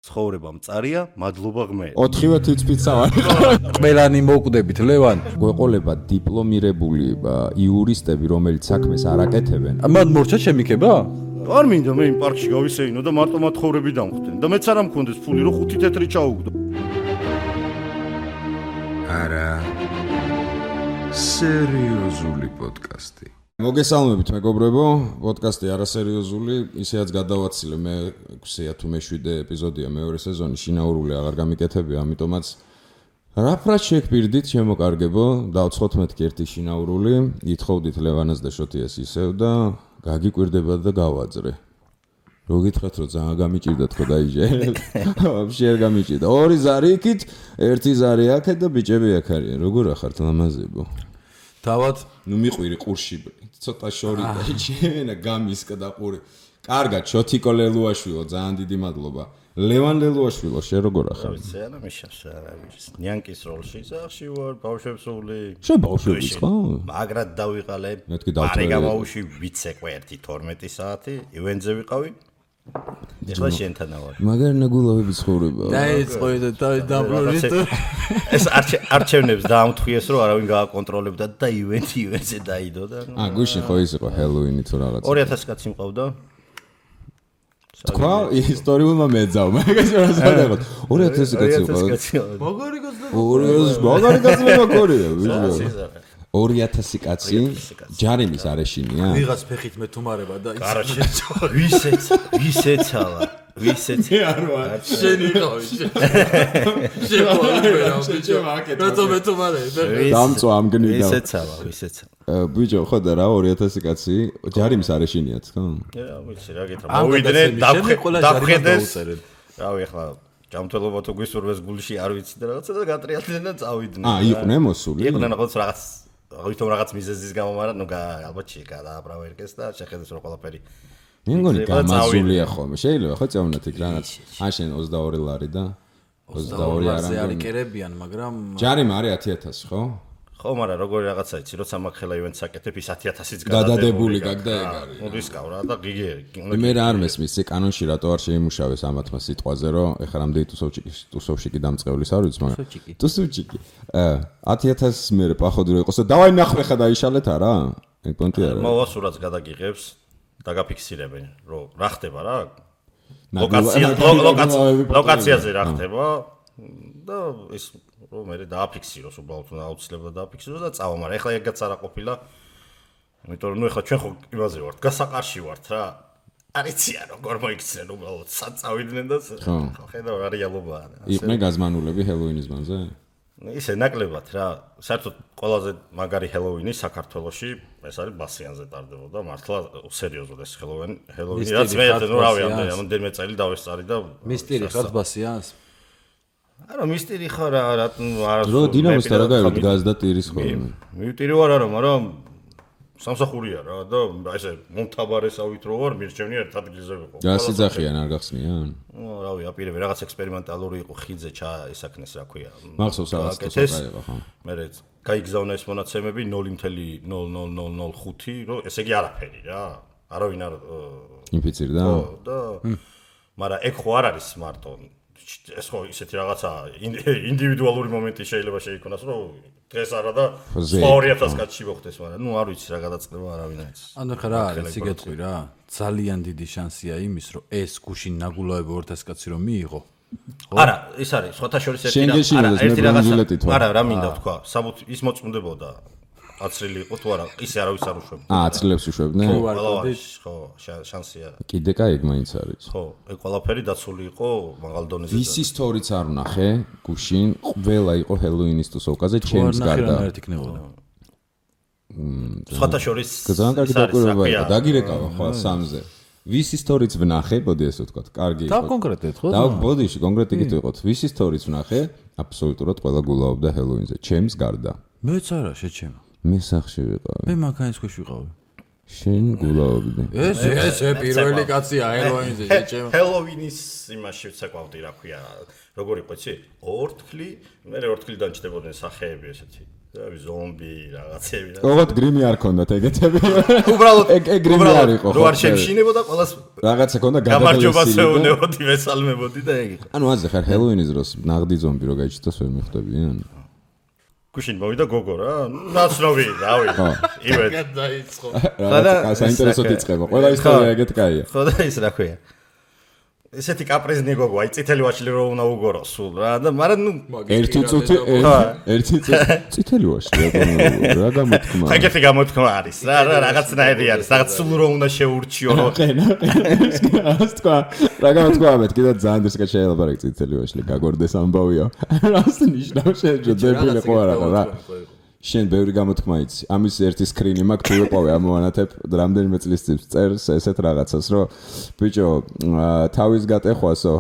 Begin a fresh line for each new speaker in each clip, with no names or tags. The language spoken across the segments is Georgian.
ცხოვრება მწარია, მადლობა ღმერთს.
4-ვე თვითფიცა ვარ.
ყველანი მოკვდებით, ლევან.
გვეყოლება დიპლომირებული იურისტები, რომელიც საქმეს არ აკეთებენ.
მან მორჩა შემიქება?
არ მინდა მე იმ პარკში გავისეინო და მარტო მათხოვრები დამხვდნენ და მეც არ მქონდეს ფული, რომ 5 თეთრი ჩაუგდო.
არა. სერიოზული პოდკასტი.
მოგესალმებით მეგობრებო, პოდკასტი არასერიოზული, ისეაც გადავაცილე მე 6-ე თუ მე-7-ე ეპიზოდია მეორე სეზონი, შინაურული აღარ გამიკეთებია, ამიტომაც რაფრად შეგპირდით, შემოკარგებო, დავცხოთ მეთქი ერთი შინაურული, ითხოვდით ლევანას და შოთიას ისევ და გაგიკვირდება და გავაძრე. რო გითხრათ, რომ ძალიან გამიჭირდა თქო დაიჯე. ვაფშე არ გამიჭირდა. 2 ზარი იქით, 1 ზარი აქეთ და ბიჭები აქ არიან. როგორ ახართ ლამაზებო?
თავად
ნუ მიყვირი ყურში ცოტა შორი დაიჭენა გამისკა და ყური. კარგად, შოთიკო ლელუაშვილო, ძალიან დიდი მადლობა. ლევან ლელუაშვილო, შენ როგორ ახარ?
ვიცი, არა მიშავს არა ვიცი. ნიანკის როლში სახში ვარ, ბავშვებსული.
შენ ბავშვების ხო?
მაგრად დავიყალე.
მეთქი დავწერე.
გარეგამაუში ვიცეკვე 1-12 საათი, ივენზე ვიყავი. ეხლა შენთან ვარ.
მაგარ ნაგულავები ცხოვრება.
დაიწყო და დაბრუნდით.
ეს არჩევნებს დაამთხვიეს, რომ არავინ გააკონტროლებდა და ივენზე დაიდო და.
გუშინ ხო ის იყო ჰელოუინი თუ რაღაც.
2000 კაცი მყავდა.
თქვა ისტორიულმა მეძავ, მაგას რა სადაღოთ. 2000 კაცი იყო.
მაგარი გაზდა.
2000 მაგარი კაცი მაქორია, ვიჟო. 2000 კაცი ჯარიმის არეშინია?
ვიღაც ფეხით მეთუმარება და ის.
კარაჩე. ვისეცალა. მე
არ ვარ.
შენ იყავი. შენ ბიჭო მაკეთ. მეთუმარე.
დამწვა ამ გნიდა.
ვისეცალა.
ბიჭო, ხო და რა 2000 კაცი ჯარიმის არეშინიათ, ხო?
ვიცი რა გითხრა. მოვიდნენ დახედეს. რავი ახლა ჯამთველობა თუ გვისურვეს გულში არ ვიცი და რაღაცა და გატრიალდნენ და წავიდნენ.
იყვნენ მოსული?
იყვნენ რაღაც მიზეზის გამო, მაგრამ ნუ ალბათ გადააბრავერკეს და შეხედეს რომ ყველაფერი.
მე მგონი გამაზულია ხოლმე. შეიძლება ხო წავნათ იქ რაღაც. შენ 22 ლარი და 22
არანგი არიკერებიან, მაგრამ
ჯარიმა არის 10000, ხო?
ხო, მაგრამ როგორი რაღაცა იცი, როცა მაგხელა ივენტს აკეთებ, ის 10000-იც
გადადებული გაგდა ეგ არის.
მოდისკავრა და გიგერი.
მე რა არ მესმის, კანონში რატო არ შეიმუშავეს ამათმა სიტყვაზე, რომ ეხლა რამდენი ტუსოვჩიკი დამწყევლის არ ვიცი, მაგრამ ტუსოვჩიკი. 10000 მე პახოვდი რომ იყოს და დავაი ნახვე ხა დაიშალეთ არა? ეგ პონტი არა.
მოვასურაც გადაგიღებს, დაგაფიქსირებენ, რომ რა ხდება რა? ლოკაციაზე რა ხდება და ის რომ მე დააფიქსიროს, უბრალოდ აუცილებლად დააფიქსიროს და წავა, მაგრამ ეხლა ეგაც არა ყოფილა. იმიტომ რომ ნუ ეხლა ჩვენ ხო იმაზე ვართ, გასაყარში ვართ რა. არიციან როგორ მოიქცნენ უბრალოდ საწავიდნენ და ხედავ რა რეალობაა.
იყვნენ გაზმანულები ჰელოუინის მანზე?
ისე ნაკლებად რა. საერთოდ ყველაზე მაგარი ჰელოუინი საქართველოში ეს არის ბასიანზე ტარდებოდა, მართლა სერიოზულად ეს ჰელოუინი, რაც მე ნუ რავი, ამდენიმე წელი დავესწარი და
მისტერი ხარ ბასიანს?
არა მისტერი ხარ რა არა
რო დინამოსთან რა გაიგეთ გაზ და ტირის ხოლმე.
მიტირი ვარ არა, მაგრამ სამსახურია რა და ესე მომთაბარესავით რო ვარ, მირჩევნი ერთ ადგილზე ვიყო.
რა სიძახიან არ გახსნიან?
რავი, აპირებე რაღაც ექსპერიმენტალური იყო, ხიძე ესაქნეს რა ქვია.
მახსოვს რაღაც ტოტაება ხო.
მე გაიგზავნა ეს მონაცემები 0.0005, რომ ესე იგი არაფერი რა. არავინ არ
ინფიცირდა?
ხო და მაგრამ ეგ ხო არ არის მარტო ეს ხო ისეთი რაღაცა ინდივიდუალური მომენტი შეიძლება შეიქონას, რომ დღეს არა და 2000 კაცში მოხდეს, მაგრამ ნუ არ ვიცი რა გადაწყდება არავინ არ იცის.
ანუ ხა რა არის, იგეთყვი რა. ძალიან დიდი შანსია იმის, რომ ეს გუშინ ნაგულავები 2000 კაცი რომ მიიღო.
არა, ის არის, სხვათა შორის ერთი რაღაცა. არა, რა მინდა ვთქვა, საბუთ ის მოწმდებოდა. აცრილი იყო თუ არა, ისე არავის არ უშვებდა.
აცრილებს უშვებდნენ?
ხო, შანსია.
კიდე კაი ეგ მაინც არის.
ხო, ეგ ყველაფერი დაცული იყო მაღალ დონეზე.
ვისი სტორიც არ ვნახე, გუშინ ყველა იყო ჰელოუინის ტუსოვკაზე, ჩემს გარდა.
სხვათა შორის
ძალიან კარგი დაკვირვებაა, დაგირეკავა ხო სამზე. ვისი სტორიც ვნახე, ბოდი ესე ვთქვა, კარგი იყო.
და კონკრეტულად ხო?
და ბოდიში კონკრეტიკით ვიყოთ. ვისი სტორიც ვნახე, აბსოლუტურად ყველა გულაობდა ჰელოუინზე, ჩემს გარდა.
მეც არა, შეჩემა.
მე სახში ვიყავი.
მე მანქანის ქვეშ ვიყავი.
შენ გულაობდი.
ეს პირველი კაცია ჰელოუინზე, შეჭემა.
ჰელოუინის იმაში ვცეკვავდი, რა ქვია, როგორ იყო იცი? ორთქლი, მე ორთქლიდან ჩდებოდნენ სახეები ესეთი. ზომბი რაღაცები და
ოღონდ გრიმი არ ქონდათ ეგეთები.
უბრალოდ
გრიმი არ იყო.
რო არ შემშინებოდა ყველას
რაღაცა ქონდა
გამარჯვებას ეუბნებოდი, მესალმებოდი და ეგ იყო.
ანუ ასე ხარ ჰელოუინის დროს ნაღდი ზომბი რო გაიჩნდოს ვერ მიხვდებიან.
გუშინ მოვიდა გოგო რა, ნაცნობი, რავი. ივეთ
დაიწყო.
რაღაცა საინტერესოდ იწყება. ყველა ისტორია ეგეთ კაია.
ხო და ის რა ქვია. ესეთი კაპრიზნი გოგო, აი წითელი ვაშლი რო უნდა უგორო სულ რა და მაგრამ ნუ
ერთი წითელი ვაშლი რა გამოთქმა.
ეგეთი გამოთქმა არის რა, რაღაცნაირი არის, რაღაც სულ რო უნდა შეურჩიო რო.
რას თქვა? რა გამოთქმა მეთქი და ძალიან დისკეთ შეიძლება რა წითელი ვაშლი გაგორდეს ამბავია. რას ნიშნავს შეჯო დებილი ხო არა რა. შენ ბევრი გამოთქმა იცი. ამის ერთი სკრინი მაქვს თუ ვეყავე ამოვანათებ რამდენიმე წლის წინ წერს ესეთ რაღაცას რომ ბიჭო თავის გატეხვასო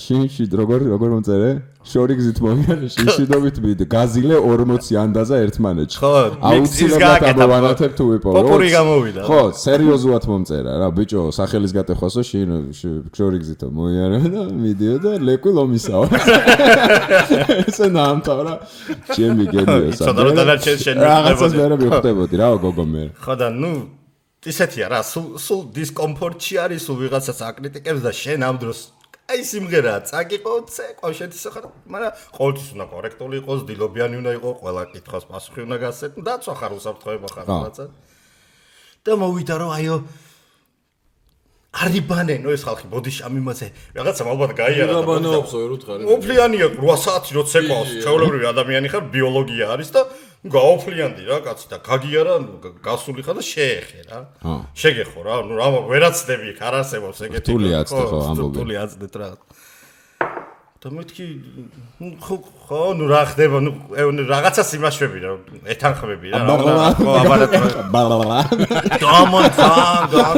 შინში როგორ მომწერე შორი გზით მომიანე შინშიდობით მიდ გაზილე 40 ანდაზა ერთმანეთში აუცილებლად ამოვანათებ თუ ვეყავე
პოპური გამოვიდა
ხო სერიოზულად მომწერა რა ბიჭო სახელის გატეხვასო შორი გზით მომიანე და მიდიო და ლეკვი ლომისაო ესე ნამთავრა ჩემი გენიოსა რაღაცას ვერ მივხვდებოდი რა გოგო მე
ხო და ნუ ისეთია რა სულ დისკომფორტში არის სულ ვიღაცას აკრიტიკებს და შენ ამ დროს აი სიმღერაა წაგიყო წეყო შეთისა ხარ მაგრამ ყოველთვის უნდა კორექტული იყოს დილობიანი უნდა იყოს ყველა კითხვას პასუხი უნდა გასცეთ დაცვა ხარ უსაფრთხოება ხარ რაღაცა და მოვიდა რომ აიო არიბანენო ეს ხალხი ბოდიშამი მასე რაღაცა ალბათ გაიარა და
ბანაობსო ვერ უთხარი
ოფლიანია 8 საათი რო ცეკვავს ჩაოლებრივი ადამიანი ხარ ბიოლოგია არის და გაოფლიანდი რა კაცი და გაგიარა გასული ხარ და შეეხე რა შეგეხო რა ნუ რა ვერაცდები იქ არ არსებობს ეგეთი
რთული აცდე ხო ამბობი
რთული აცდეთ რა და მეთქი ხო ნუ რა ხდება ნუ რაღაცას იმაშვები რა ეთანხმები რა ხო აბარატ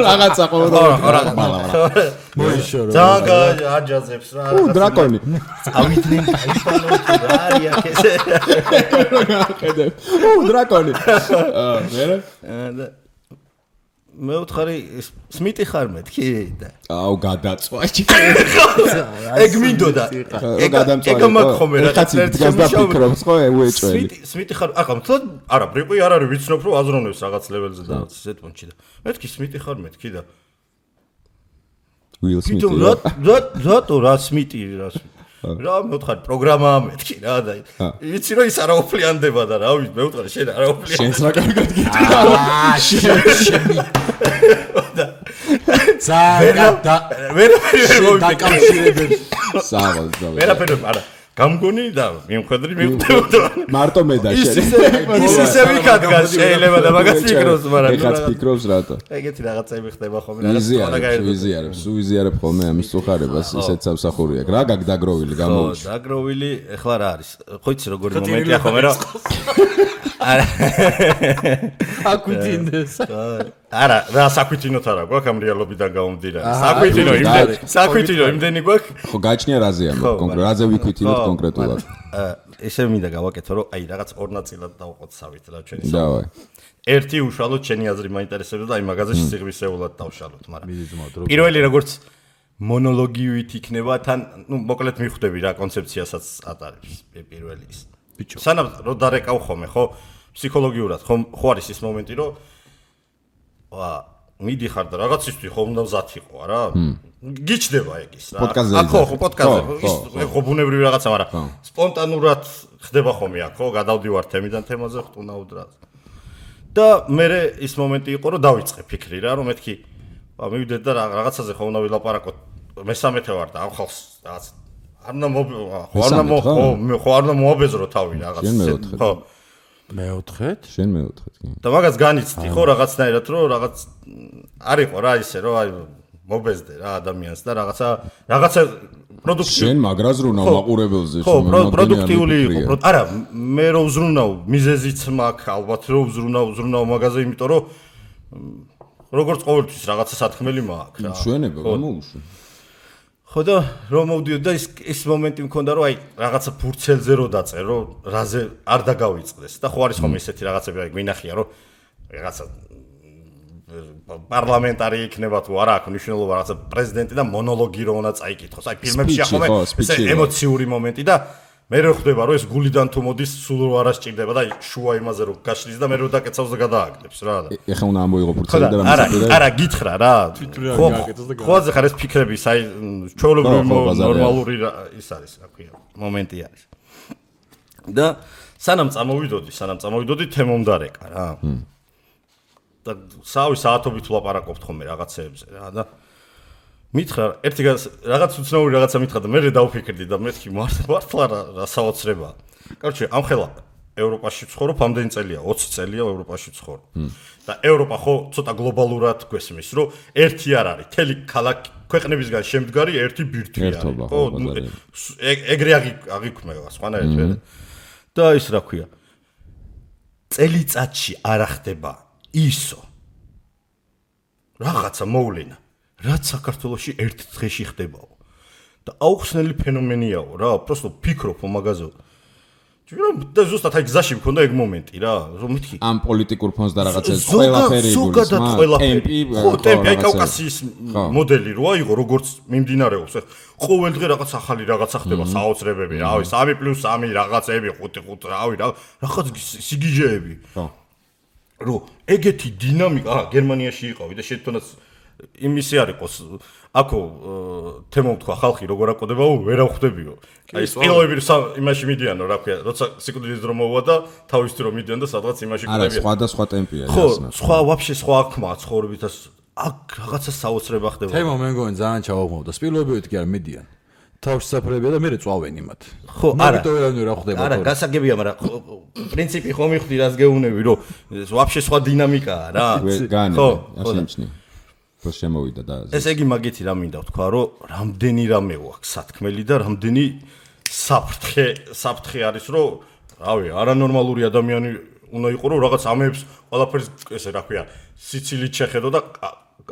რაღაცა ყოველდღე
მოიშორო
ძაგა აჯაზებს რა
დრაკონი
წავიდნენ აიფანო რა არია ესე
ხედე დრაკონი
მე ვთხარი სმიტი ხარ მეთქი და
აუ გადაწვა
ეგ მინდოდა ეგ მაგხომე რა
ერთ გასდაფიქრობს ხო უეჭველი
სმიტი ხარ ახლა თქო არა ბრიყვი არ არის ვიცნობ რომ აზროვნებს რაღაც ლეველზე და ისეთ პონჩი და მეთქი სმიტი ხარ მეთქი და
უილ სმიტი
რატო რა სმიტი რა მე ვთხარი პროგრამაა მეთქი რა და იცი რომ ის არაოფლიანდება და რა ვიცი მე ვთხარი შენ არაოფლიანდება
შენს რა კარგად გიტყვი
ზაგა
ვერ
დაკავშირებებს
საღოლ
ვერაფერი არა გამგონი და მიმხედრი მივხვდებოდა
მარტო მე და შენ
ის ისე ვიქადგა შეიძლება და მაგას ფიქრობს მაგრამ
ეხაც ფიქრობს რატო
ეგეთი რაღაცები ხდება ხოლმე
ვიზიარებ ხოლმე ამის წუხარებას ისეთ სამსახური აქვს რა გაგდაგროვილი გამოუჩ
დაგროვილი ეხლა რა არის ხო იცი როგორი მომენტია ხოლმე რა
აკვითინდეს
არა რა საკვითინოთ არა გვაქვს ამ რეალობიდან გამომდინარე საკვითინო იმდენი გვაქვს
ხო გაჩნია რაზეა კონკრეტულად რაზე ვიკვითინოთ კონკრეტულად
ესე მინდა გავაკეთო რომ აი რაღაც ორ ნაწილად დავყოცავით რა ჩვენი
დავაი
ერთი უშუალოდ ჩემი აზრი მაინტერესებდა და აი მაგაზე სიღრმისეულად დავშალოთ მაგრამ პირველი როგორც მონოლოგივით იქნება თან ნუ მოკლედ მიხვდები რა კონცეფციასაც ატარებს პირველი ის ბიჭო სანამ რო დარეკავ ხოლმე ხო ფსიქოლოგიურად ხო არის ის მომენტი რომ მიდიხარ და რაღაცისთვის ხო უნდა მზად იყო რა გიჩდება ეგ ის რა ხო პოდკასტზე ხო ბუნებრივი რაღაცა მაგრამ სპონტანურად ხდება ხოლმე აქ ხო გადავდივარ თემიდან თემაზე ხტუნავთ რა და მე ის მომენტი იყო რომ დავიწყე ფიქრი რა რომ მეთქი მივიდეთ და რაღაცაზე ხო უნდა ვილაპარაკოთ მესამეთე ვარ და ამ ხალხს რაღაც არ უნდა მოაბეზრო თავი რაღაც ხო
მეოთხეთ?
შენ მეოთხეთ კი.
და მაგას განიცდი ხო რაღაცნაირად რომ რაღაც არისო რა ისე რომ აი მობეზდე რა ადამიანს და რაღაცა პროდუქტივი
შენ მაგრას რუნავ მაყურებელზე
ხო პროდუქტიული იყო არა მე რო ვზრუნავ მიზეზიც მაქვს ალბათ რო ვზრუნავ მაგაზე იმიტომ რომ როგორც ყოველთვის რაღაცა სათქმელი მაქვს რა
ჩვენება გამოუშვი
ხო და რომ მოვდიოდ და ის მომენტი მქონდა რომ აი რაღაცა ფურცელზე რო დაწერო რაზე არ დაგავიწყდეს და ხო არის ხოლმე ისეთი რაღაცები აი გვინახია რომ რაღაცა პარლამენტარი იქნება თუ არა აქვს მნიშვნელობა რაღაცა პრეზიდენტი და მონოლოგი რო უნდა წაიკითხოს. აი ფილმებში ახლა ეს ემოციური მომენტი და მე რო ხვდება რომ ეს გულიდან თუ მოდის სულ რო არ ასჭირდება და შუა იმაზე რო გაშლის და მე რო დაკეცავს და გადააგდებს რა.
ეხლა უნდა ამოიღო ფურცელი და
არა გითხრა რა. ხო ხარ ეს ფიქრები აი ჩვეულებრივი ნორმალური ის არის რა ქვია მომენტი არის. და სანამ წამოვიდოდი თემომდარეკა რა. და სავი საათობით ვლაპარაკობთ ხოლმე რაღაცეებზე რა და მითხრა ერთი რაღაც უცნაური რაღაცა მითხრა და მე დავფიქრდი და მეთქი მართლა რა საოცრებაა. კაროჩე ამ ხელა ევროპაში ვცხოვრობ, ამდენი წელია, 20 წელია ევროპაში ვცხოვრობ. და ევროპა ხო ცოტა გლობალურად გვესმის, რომ ერთი არ არის, თელი ქალაქი ქვეყნებისგან შემდგარი ერთი ბირთვი არის. ხო, ეგრე აღიქმება სხვანაირად ვერ. და ის რა ქვია? წელიწადში არ ხდება ისო. რაღაცა მოვლენა რაც საქართველოში ერთ დღეში ხდებაო და აუხსნელი ფენომენიაო რა просто ფიქრობ მაგაზე და ზუსტად აი გზაში მქონდა ეგ მომენტი რა რომ მეთქი
ამ პოლიტიკურ ფონს და რაღაცას ყველაფერი
ტემპი აი კავკასიის მოდელი რო აიღო როგორც მიმდინარეობს ყოველ დღე რაღაც ახალი რაღაცა ხდება საოცრებები რავი 3+3 რაღაცები 5 რავი რაღაც სიგიჟეები რო ეგეთი დინამიკა გერმანიაში იყავი და შეთქონაც იმისი არ იყოს აქო თემო თქვა ხალხი როგორ აკოდებაო ვერ ახვდებიო აი სპილოები იმაში მიდიანო რა ქვია როცა სიკვდილის დრო მოვა და თავის დრო მიდიან და სადღაც იმაში კვდებიან
არა სხვა ტემპია
ხო სხვა ვაფშე სხვა აქმა ცხოვრებით აქ რაღაცა საოცრება ხდება
თემო მე მგონი ძალიან ჩავაღმოვდა სპილოებივით კი არ მიდიან თავში საფრებია და მე წვავენ იმათ
ხო არა
რა ხდება
არა გასაგებია მაგრამ პრინციპი ხომ მიხდი რას გეუნები რომ ვაფშე სხვა დინამიკაა რა
ხო ასიმჩნი ხო შემოვიდა და
ეს იგი მაგითი რა მინდა ვთქვა რომ რამდენი რამე აქვს სათქმელი და რამდენი საფრთხე არის რომ რავი არანორმალური ადამიანი უნდა იყო რომ რაღაც ამებს ყველაფერს ესე რა ქვია სიცილით შეხედო და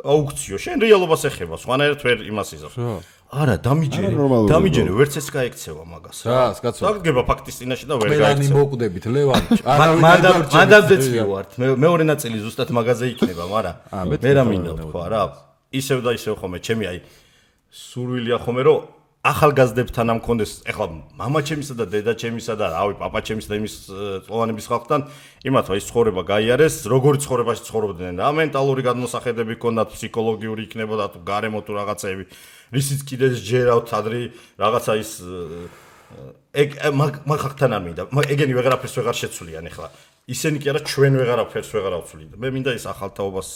აუქციო შენ რეალობას ეხება სხვანაირად ვერ იმას იზავს არა დამიჯერე ვერც ეს გაიქცევა მაგას
რა კაცო
დაგება ფაქტის წინაშე და ვერ
გაიქცევა ყველანი მოკვდებით ლევანი
მანდამდეც ვიყავართ მეორე ნაწილი ზუსტად მაგაზე იქნება მაგრამ მე რა მინდა თქვა რა ისევ და ისევ ხომე ჩემი აი სურვილია ხომე რომ ახალგაზრდებთან ამ კონდეს ეხლა მამაჩემისა და დედაჩემისა და რავი პაპაჩემისა და იმის წლოვანების ხალხთან იმათ ის ცხოვრება გაიარეს როგორი ცხოვრებაში ცხოვრობდნენ რა მენტალური გადმოსახედები ჰქონდათ ფსიქოლოგიური იქნებოდა თუ გარემო თუ რაღაცეები რისიც კიდე ჯერავთ ადრე რაღაცა ის ეგ მაგ ხალხთან არ მინდა ეგენი ვეღარაფერს ვეღარ შეცვლიან ეხლა ისენი კი არა ჩვენ ვეღარაფერს ვეღარ ავცვლით მე მინდა ის ახალთაობას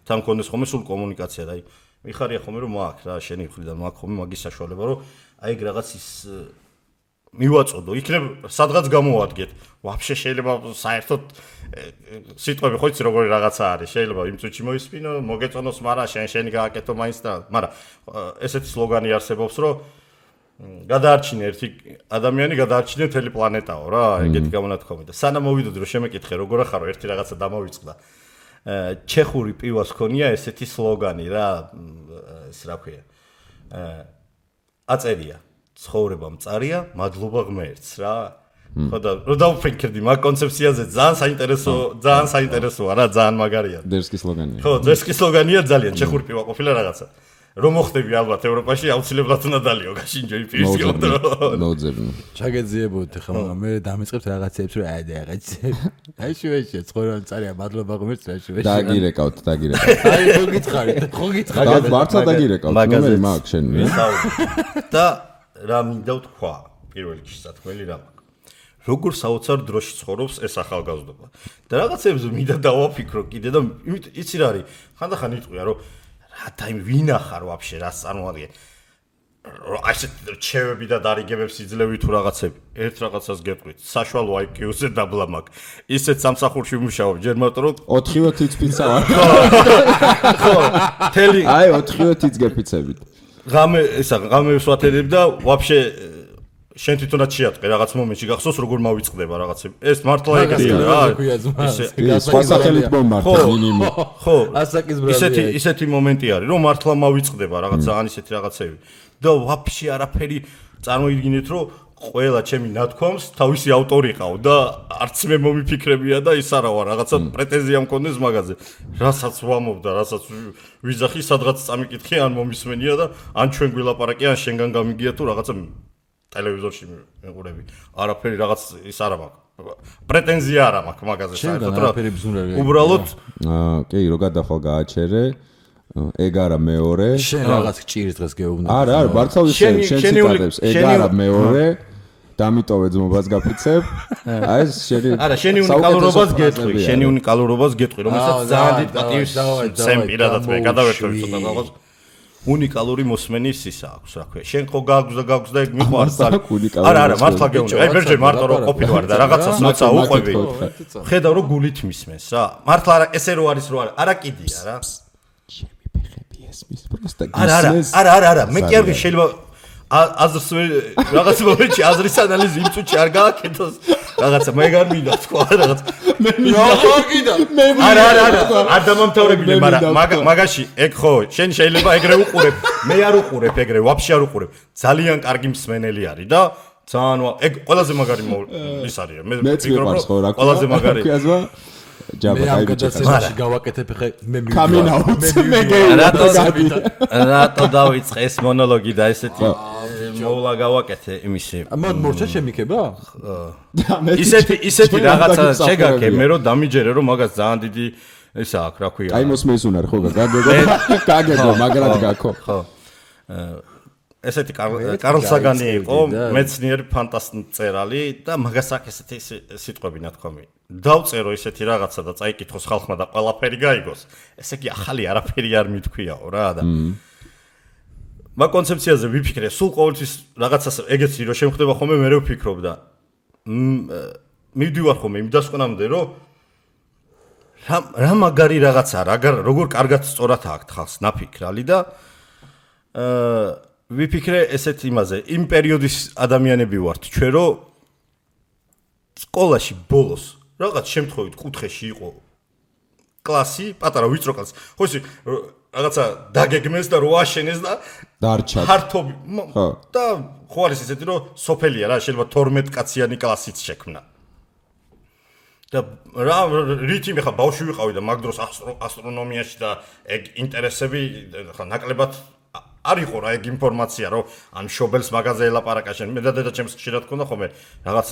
თან კონდეს ხომე სულ კომუნიკაცია და აი მიხარია ხომე რომ მაქვს რა შენი მხრიდან მაქვს ხომე მაგის საშუალება რომ აი ეგ რაღაც ის მივაწოდო იქნებ სადღაც გამოვადგეთ ვაფშე შეიძლება საერთოდ სიტყვები ხო იცი როგორი რაღაცა არის შეიძლება იმ წუთში მოისმინო მოგეწონოს მაგრამ შენი გააკეთო მაინც და მაგრამ ესეთი სლოგანი არსებობს რომ გადაარჩინე ერთი ადამიანი გადაარჩინე მთელი პლანეტაო რა ეგეთი გამონათქვამი და სანამ მოვიდოდი რომ შემეკითხე როგორ ახარო ერთი რაღაცა დამოვიწყდა ჩეხური პივას ქონია ესეთი სლოგანი რა ეს რა ქვია აწერია ცხოვრება მწარია მადლობა ღმერთს რა ხო და რო დავფიქრდი მაგ კონცეფციაზე ძალიან საინტერესოა რა ძალიან მაგარია
დერსკის სლოგანია
ხო დერსკის სლოგანია ძალიან ჩეხური პივა ყოფილა რაღაცა რომ მოხდები ალბათ ევროპაში აუცილებლად უნდა დალიო გაშინჯო პივის გამო
ნოძებნი
ჩაგეძიებოთ ხა მაგრამ მე დამეწყებთ რაღაცებს რომ აი რაღაცებს აი შუაში ცხოვრება მწარია მადლობა ღმერთს რა შუაში
დაგირეკავთ
აი ხო გითხარი
მართლა დაგირეკავთ ნომერი მაქვს შენ
და რა მინდა ვთქვა პირველ რიგში სათქმელი რა როგორ საოცარ დროში ცხოვრობს ეს ახალგაზრდობა და რაღაცებს მინდა დავაფიქრო კიდე და იცი რა არის ხანდახან იტყვია რომ რა ტაიმ ვინახარ ვაფშე რას წარმოადგენ აი ეს ჩევები და დარიგებებს იძლევი თუ რაღაცები ერთ რაღაცას გეტყვით საშუალო IQ-ზე დაბლა მაქვს ისეთ სამსახურში ვმუშაობ ჯერ მარტო რომ
4-ივე თიცფიცა ვარ
ხო თელი
აი 4-ივე თიც გეფიცებით
ღამეს ვათერებ და ვაფშე შენ თვითონაც შეატყე რაღაც მომენტში გახსოვს როგორ მავიწყდება რაღაცები ეს მართლა ეგეთი რა
სხვა სახელით მომმართე მინიმუმ
ხო
ასაკის ბრალია
ისეთი მომენტი არის რომ მართლა მავიწყდება რაღაც ძალიან ისეთი რაღაცები და ვაფშე არაფერი წარმოიდგინეთ რომ ყველა ჩემი ნათქვამს თავისი ავტორი ყავ და არც მე მომიფიქრებია და ის არა ვარ რაღაცა პრეტენზია მქონდეს მაგაზე რასაც ვამობდა რასაც ვიზახი სადღაც წამიკითხე ან მომისმენია და ან ჩვენ გვილაპარაკი ან შენგან გამიგია თუ რაღაცა ტელევიზორში მეყურები არაფერი რაღაც ის არა მაქვს პრეტენზია არა მაქვს მაგაზე საერთოდ რა უბრალოდ
კი რო გადახვალ გააჩერე ეგ არა მეორე
შენ რაღაც ჭირის დღეს გეუბნები
არა მართლა შენ ციტატებს ეგ არა მეორე დამიტოვე ძმობას გაფიცებ აი ეს შენი
არა შენი უნიკალურობას გეტყვი რომელსაც ძალიან დიდ პატივს სემ პირადად მე გადავერთვე ცოტა რაღაც უნიკალური მოსმენის ისა აქვს რა ქვია შენ ხო გააქვს და ეგ მიყვარს არა მართლა გეუბნები აი ბერჯერ მარტო რო ყოფილი ვარ და რაღაცას მოცა უყვები ხედავ რომ გულით მისმენს რა მართლა არა ესე რო არის რო არა კიდია რა არა მე კი არ ვი შეიძლება აზრს რაღაც მომენტში აზრის ანალიზი იმ წუთში არ გააკეთოს რაღაცა მე არ მინდა თქვა რაღაც მე მინდა არ დამამთავრებინე მაგრამ მაგაში ეგ ხო შენ შეიძლება ეგრე უყურებ მე არ უყურებ ეგრე ვაფშე არ უყურებ ძალიან კარგი მსმენელი არის და ძალიან ეგ ყველაზე მაგარი ის არის მე ვფიქრობ რომ ყველაზე მაგარი
ჯაბა გაიჭირე გავაკეთებ ხე მე
რატო დავიწყე ეს მონოლოგი და ესეთი მოვლა გავაკეთე იმისი
მორჩა შემიქება
ისეთი რაღაცა შეგაკე მე რომ დამიჯერე რომ მაგას ძალიან დიდი ისა აქვს რა ქვია
აი მოსმენს უნარ ხო გაგეგო მაგრად გაქო
ხო ესეთი კარლ საგანი იყო მეცნიერი ფანტასტი მწერალი და მაგას აქვს ესეთი სიტყვები ნათქვამი დავწერო ისეთი რაღაცა და წაიკითხოს ხალხმა და ყველაფერი გაიგოს ესე იგი ახალი არაფერი არ მithქვიაო რა და მაგ კონცეფციაზე ვიფიქრე სულ ყოველთვის რაღაცას ეგეთი რომ შემხდება ხოლმე მე ვფიქრობ და მივდივარ ხოლმე იმ დასკვნამდე რომ რა მაგარი რაღაცა როგორ კარგად სწორად აქვს ხალხს ნაფიქრალი და ვიფიქრე ესეთ იმაზე იმ პერიოდის ადამიანები ვართ ჩვენ რომ სკოლაში ბოლოს რაღაც შემთხვევით კუთხეში იყო კლასი პატარა ვიწრო კლასი ხო ისი რაღაცა დაგეგმეს და რო აშენეს და
დარჩა
ფართობი და ხო არის ისეთი რომ სოფელია რა შეიძლება 12 კაციანი კლასიც შექმნა და რა რითი მე ხა ბავშვი ვიყავი და მაგ დროს ასტრონომიაში და ეგ ინტერესები ხა ნაკლებად არ იყო რა ეგ ინფორმაცია რომ ან შობელს მაგაზე ელაპარაკა შენ მე და დედაჩემს ხშირად ქონდა ხოლმე რაღაც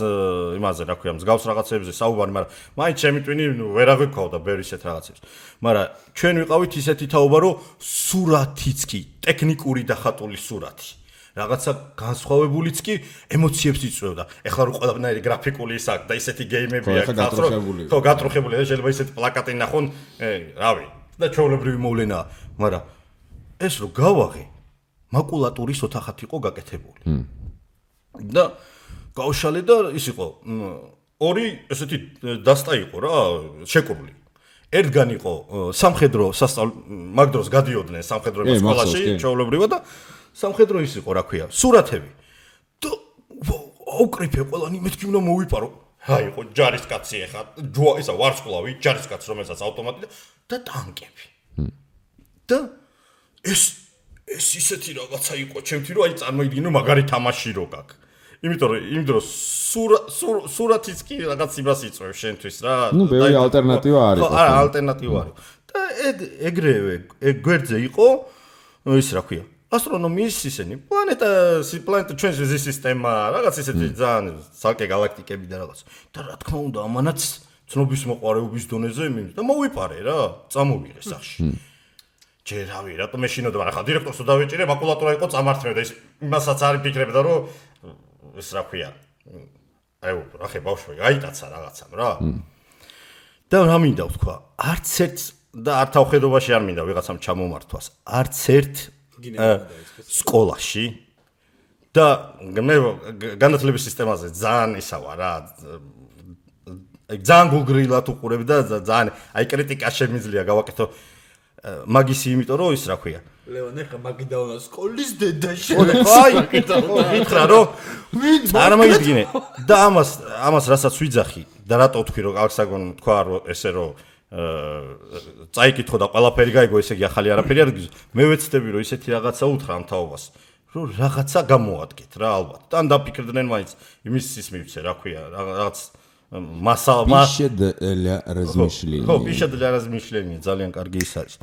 იმაზე რა ქვია მსგავს რაღაცებზე საუბარი მაგრამ მაინც ჩემი ტვინი ვერ აღვიქავდა ბევრი ისეთ რაღაცებს მაგრამ ჩვენ ვიყავით ისეთი თაობა რომ სურათიც კი ტექნიკური და ხატული სურათი რაღაცა განსხვავებულიც კი ემოციებს იწვევდა ეხლა რო ყველაფერი გრაფიკული ის აქვს და ისეთი გეიმები აქვს ხო გატრუხებული და შეიძლება ისეთი პლაკატი ნახონ რავი და ჩვეულებრივი მოვლენაა მაგრამ ეს რო გავაღე მაკულატურის ოთახად იყო გაკეთებული. და გავშალე და ის იყო ორი ესეთი დასტა იყო რა, შეკრული. ერთგან იყო სამხედრო მაგ დროს გადიოდნენ სამხედროების სკოლაში, ჩვეულებრივად და სამხედრო ის იყო, რა ქვია, სურათები. და აუკრიფე ყველანი მეთქი უნდა მოვიპარო. აი იყო ჯარისკაცი ახლა, ისა ვარსკვლავი, ჯარისკაც რომელსაც ავტომატი და ტანკები. და ეს ისეთი რაღაცა იყო ჩემთვის რომ აი წარმოიდგინო მაგარი თამაში რო გაქვს. იმიტომ რომ იმ დროს სურათიც კი რაღაც იმას იწვევს შენთვის რა.
ნუ ბევრი ალტერნატივა არის.
ხო, არა, ალტერნატივა არის. და ეგრევე გვერდზე იყო ის რა ქვია. ასტრონომიის ისენი პლანეტა ჩვენს ზის სისტემა რაღაც ისეთი ძალიან ცალკე galaktikები და რაღაც. და რა თქმა უნდა ამანაც ცნობის მოყარეობის დონეზე და მოვიპარე რა, წამოვიღე სახში. ჯერ რავი, რატომ მეშინოდა, მაგრამ ხა დირექტორს დავეჭირე, მაკულატურა იყო წამართმევდა ის იმასაც არ ფიქრებდა რომ ეს რა ქვია. აი რა ხე ბავშვი, აიტაცა რაღაცამ რა. და რა მინდა ვთქვა, არც ერთ და არ თავხედობაში არ მინდა ვიღაცამ ჩამომართვას. არც ერთ სკოლაში და მე განათლების სისტემაზე ძალიან ისა ვარ რა. ძალიან გულგრილად უყურებ და ძალიან აი კრიტიკა შემიძლია გავაკეთო მაგისი იმიტომ რომ ის რა ქვია
ლეონე ხა მაგიდაუნა სკოლის დედაში
აი გითხრა რომ არ მოიდგინე და ამას რასაც ვიძახი და რატო ვთქვი რომ აღსაგონ თქვა რომ ესე რომ წაიკითხო და ყველაფერი გაიგო ესე იგი ახალი არაფერი არ გიზო მე ვეცდები რომ ისეთი რაღაცა უთხრა ამ თაობას რომ რაღაცა გამოადგეთ რა ალბათ. თან დაფიქრდნენ მაინც იმის ის მივცე, რა ქვია, რაღაც
Пища для размышления.
ხო, пища для размышления, ძალიან კარგი ის არის.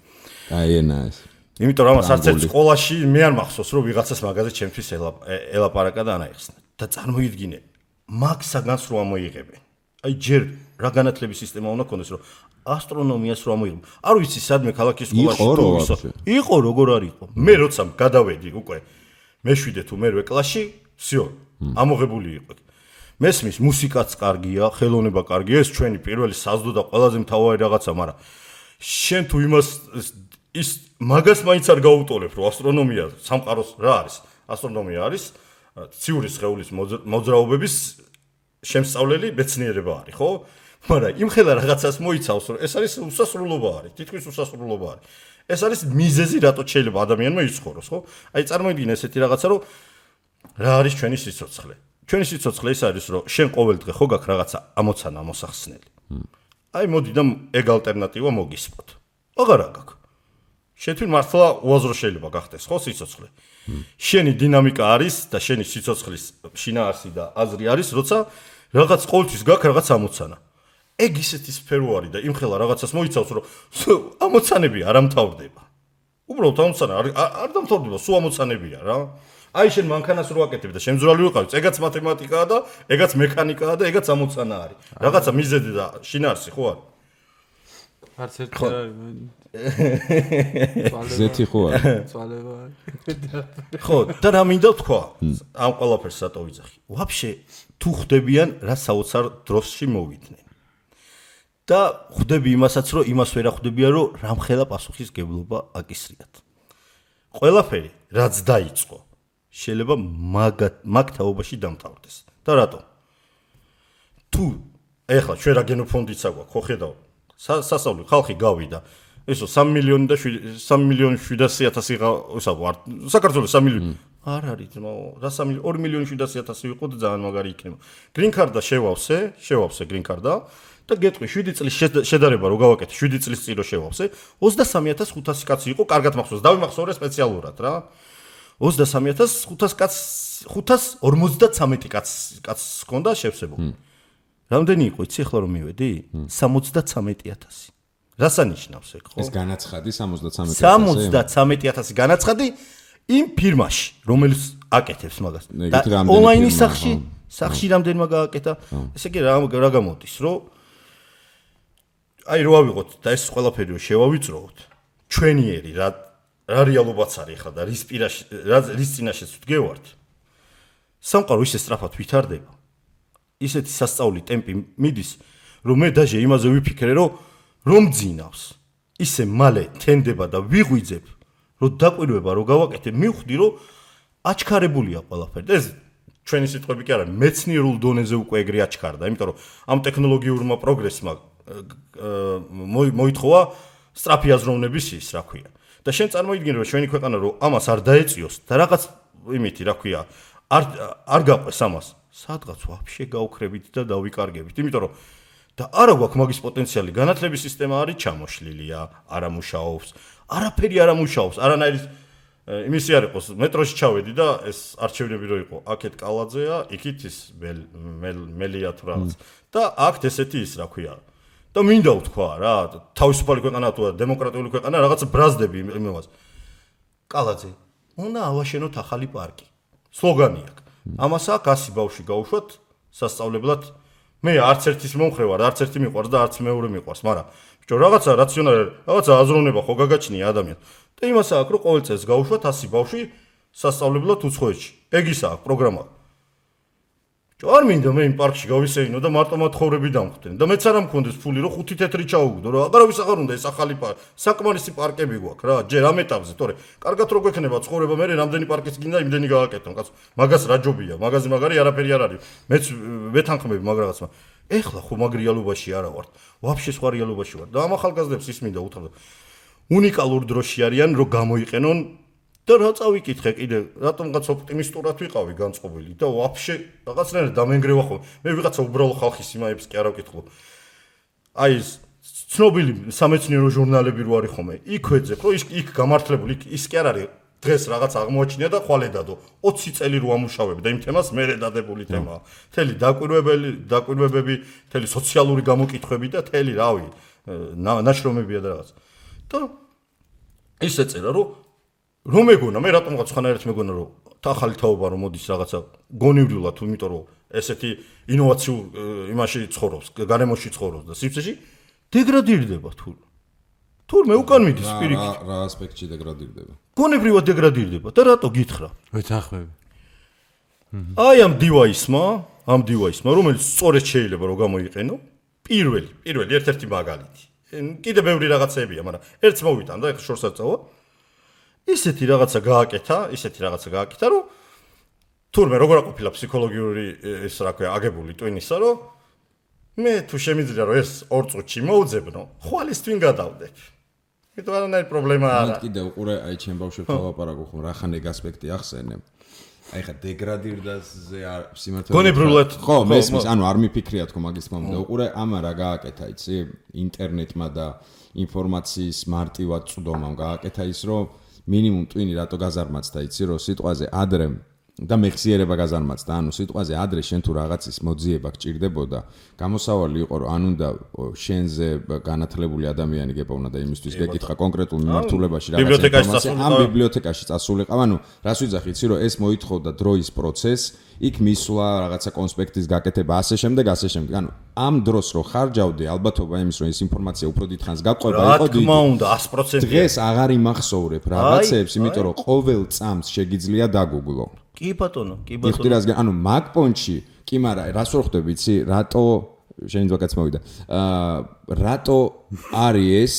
Каенас.
იმიტომ რომ არც ერთ სკოლაში მე არ მახსოვს რომ ვიღაცას მაგაზე ჩემთვის ელაპარაკა და ანაიხსნა. და წარმოიდგინე, მაგ საგანს რო ამოიღებენ. აი ჯერ რა განათლების სისტემა უნდა ქონდეს რომ ასტრონომიას რო ამოიღებენ. არ ვიცი სადმე ქალაქის სკოლაში იყო როგორ არ იყო. მე როცა გადავედი უკვე მე-7 თუ მე-8 კლასში, всё, ამოღებული იყო. მესმის მუსიკაც კარგია, ხელოვნება კარგია, ეს ჩვენი პირველი საზდო და ყველაზე მთავარი რაღაცა, მაგრამ შენ თუ იმას ის მაგას მაინც არ გაუტოლებ, რომ ასტრონომია სამყაროს რა არის? ასტრონომია არის ციური სხეულის მოძრაობების შემსწავლელი მეცნიერება არის, ხო? მაგრამ იმხელა რაღაცას მოიცავს, რომ ეს არის უსასრულობა არის, თითქმის უსასრულობა არის. ეს არის მიზეზი, რატო შეიძლება ადამიანმა იცხოვროს, ხო? აი წარმოიდგინე ესეთი რაღაცა, რომ რა არის ჩვენი სიცოცხლე? ჩვენი სიცოცხლე ის არის, რომ შენ ყოველ დღე ხო გაქვს რაღაცა ამოცანა მოსახსნელი. აი მოდი და ეგ ალტერნატივა მოგისმოთ. აღარა გაქვს. შენ მართლა უაზრო შეიძლება გახდეს, ხო, სიცოცხლე. შენი დინამიკა არის და შენი სიცოცხლის შინაარსი და აზრი არის, როცა რაღაც ყოველთვის გაქვს რაღაც ამოცანა. ეგ ისეთი სფერო არის და იმხელა რაღაცას მოიცავს, რომ ამოცანები არ ამთავრდება. უბრალოდ ამოცანა არ დამთავრდება, სულ ამოცანებია რა. აი შენ მანქანას რო აკეთებ და შემძვრალი ვიყავი, ეგაც მათემატიკაა და ეგაც მექანიკაა და ეგაც ამოცანა არის. რაღაცა მიზეზი და შინაარსი ხო არის?
არც ერთი არ არის.
ზეთი ხო არის?
წვალება.
ხო, და რა მინდა თქვა? ამ ყველაფერს სატო ვიძახი. ვაფშე თუ ხდებიან რა საოცარ დროში მოვიდნენ. და ხვდები იმასაც, რომ იმას ვერ ხვდებიან, რომ რამხელა პასუხისგებლობა აკისრიათ. ყველაფერი რაც დაიწყო შეიძლება მაგ თაობაში დამთავრდეს. და რატო? თუ ეხლა ჩვენ რა გენოფონდიც აგვაქვს, ხო ხედავ? სასწავლო ხალხი გავიდა. ესო 3 მილიონი და 3 მილიონი 700.000 ისა ვარ. საქართველოს 3 მილიონი. არ არის ძმაო, რა 2 მილიონი 700.000 ვიყო და ძალიან მაგარი იქნება. green card-და შევავსე green card-და და გეტყვი 7 წლის შედარება რო გავაკეთე, 7 წლის წინ რო შევავსე, 23.500 კაცი იყო, კარგად მახსოვს, დავიმახსოვრე სპეციალურად რა. 23.500 კაცს 553 კაცს ჰქონდა შევსებული. რამდენი იყო, იცი ახლა რომ მივედი? 73.000. რას ანიშნავს ეგ, ხო?
ეს განაცხადი 73.000.
73.000 განაცხადი იმ ფირმაში, რომელიც აკეთებს მაგას. და ონლაინის სახში რამდენმა გააკეთა? ესე იგი რა გამოდის, რომ აი რო ავიღოთ და ეს ყველაფერი რო შევავიწროოთ, ჩვენიერი რა რეალობაც არის ხა და რის წინაშეც ვდგევართ. სამყარო ისე სწრაფად ვითარდება. ისეთი სასწაული ტემპი მიდის, რომ მე დაჟე იმაზე ვიფიქრე, რომ ძინავს. ისე მალე თენდება და ვიღვიძებ, რომ დაკვირვება რო გავაკეთე, მივხვდი, რომ აჩქარებულია ყველაფერი. ეს ჩვენი სიტყვები კი არა, მეცნიერულ დონეზე უკვე ეგრე აჩქარდა, იმიტომ რომ ამ ტექნოლოგიურმა პროგრესმა მოითხოვა სწრაფი აზროვნების ის, რა ქვია. და შენ წარმოიდგინე, რომ ჩვენი ქვეყანა რომ ამას არ დაეწიოს და რაღაც იმითი, რა ქვია, არ გაყვეს ამას. სადღაც ვაფშე გავუქრებით და დავიკარგებით, იმიტომ რომ და არა გვაქვს მაგის პოტენციალი, განათლების სისტემა არის ჩამოშლილია, არ ამუშაობს, არაფერი არ ამუშაობს, არანაირი იმისი არ იყოს, მეტროში ჩავედი და ეს არჩევნები რო იყო, აქეთ კალაძეა, იქით ის მელია თუ რაღაც. და აქ ესეთი ის, რა ქვია. და მინდა ვთქვა რა, თავისუფალი ქვეყანა თუ დემოკრატიული ქვეყანა, რაღაც ბრაზდები იმას. კალაძე, უნდა ავაშენოთ ახალი პარკი. სლოგანი აქვს. ამას აქ 100 ბავშვი გაუშვათ სასწავლებლად. მე არც ერთის მომხრე ვარ, არც ერთი მიყვარს და არც მეორე მიყვარს, მაგრამ ბიჭო, რაღაცა რაციონალი, რაღაცა აზროვნება ხო გაგაჩნია ადამიანს. და იმას აქვს, რომ ყოველ წელს გაუშვათ 100 ბავშვი სასწავლებლად უცხოეთში. ეგ ის აქვს პროგრამა. არ მინდა მე იმ პარკში გავისეინო და მარტო მათხოვრები დამხვდნენ და მეც არ მქონდეს ფული რომ 5 თეთრი ჩაუგდო რა აღარავის აღარ უნდა ეს ახალი საკმარისი პარკები გვაქვს რა ჯერ ამ ეტაპზე თორე კარგად რო გვექნება ცხოვრება მე რამდენი პარკის გინდა იმდენი გააკეთო კაცო მაგას რა ჯობია მაგაზე მაგარი არაფერი არ არის მეც ვეთანხმები მაგ რაღაცმა ეხლა ხო მაგ რეალობაში არა ვარ ვაფშე სხვა რეალობაში ვარ და ამ ახალგაზრდებს ის მინდა უთხრა უნიკალურ დროში არიან რომ გამოიყენონ და რა წავიკითხე კიდე რატომღაც ოპტიმისტურად ვიყავი განწყობილი და ვაფშე რაღაცნაირად დამენგრევა ხო მე ვიღაცა უბრალო ხალხის იმაებს კი არ ავკითხულო აი ეს ცნობილი სამეცნიერო ჟურნალები რო არის ხოლმე იქ ვეძებ რომ იქ გამართლებული ის კი არ არის დღეს რაღაც აღმოაჩინია და ხვალედადო 20 წელი რო ამუშავებ და იმ თემას მერე დადებული თემაა. მთელი დაკვირვებები, მთელი სოციალური გამოკითხვები და მთელი რავი ნაშრომებია და რაღაც. და ისე წერა რომ მეგონა მე რატომღაც ხანერთ მეგონა რომ ახალი თაობა რომ მოდის რაღაცა გონივრულად, იმიტომ რომ ესეთი ინოვაციურ იმაში ცხოვრობს, გარემოში ცხოვრობს და სივრცეში დეგრადირდება თურმე უკან მიდის პირიქით.
რა ასპექტში დეგრადირდება?
გონებრივად დეგრადირდება და რატო გითხრა?
ვეთანხმები.
აი ამ დივაისმა, რომელიც სწორედ შეიძლება რომ გამოიყენო, პირველი ერთ-ერთი მაგალითი. კიდე ბევრი რაღაცებია, მაგრამ ერთს მოვიტან და ეხლა შორს არ წავა. ისეთი რაღაცა გააკეთა, რომ თურმე როგორ აყოფილა ფსიქოლოგიური ეს რა ქვია, აგებული ტვინისა, რომ მე თუ შემიძლია რომ ეს 2 წუთში მოვძებნო, ხვალის თვინ გადავდებ. იმიტომ არანაირი პრობლემა არ არის.
კიდე უყურე, აი ჩემ ბავშვებთან ვლაპარაკობ, ხომ რა ხან ეგ ასპექტი ახსენე. აი ხა დეგრადირდაზე სიმართლე
გონებრივად
ხო მესმის, ანუ არ მიფიქრია თქო მაგის თქმა უნდა. უყურე, ამა რა გააკეთა, იცი? ინტერნეტმა და ინფორმაციის მარტივად წვდომამ გააკეთა ის, რომ მინიმუმ ტვინი რატო გაზარმაცდა, იცი, რომ სიტყვაზე ადრე და მეხსიერება გაზარმაცდა, ანუ სიტყვაზე ადრე შენ თუ რაღაცის მოძიება გჭირდებოდა, გამოსავალი იყო, რომ ან უნდა შენზე განათლებული ადამიანი გეპოვნა და იმისთვის გეკითხა კონკრეტულ მიმართულებაში რაღაცა ინფორმაცია, ან ბიბლიოთეკაში წასულიყავ, ანუ რას ვიძახი, იცი, რომ ეს მოითხოვდა დროის პროცესს, იქ მისვლა რაღაცა კონსპექტის გაკეთება, ასე შემდეგ. ანუ ამ დროს რო ხარჯავდი, ალბათობა იმის, რომ ეს ინფორმაცია უფრო დიდხანს გაყვება, იყო დიდი.
რა თქმა უნდა, 100%.
დღეს აღარ იმახსოვრებ რაღაცებს, იმიტომ რომ ყოველ წამს შეგიძლია დაგუგლო.
კი ბატონო.
ანუ მაგ პონჩი, კი მარა, რას ვერ ხვდები, იცი, რატო შენ ძვაკაც მოვიდა. რატო არის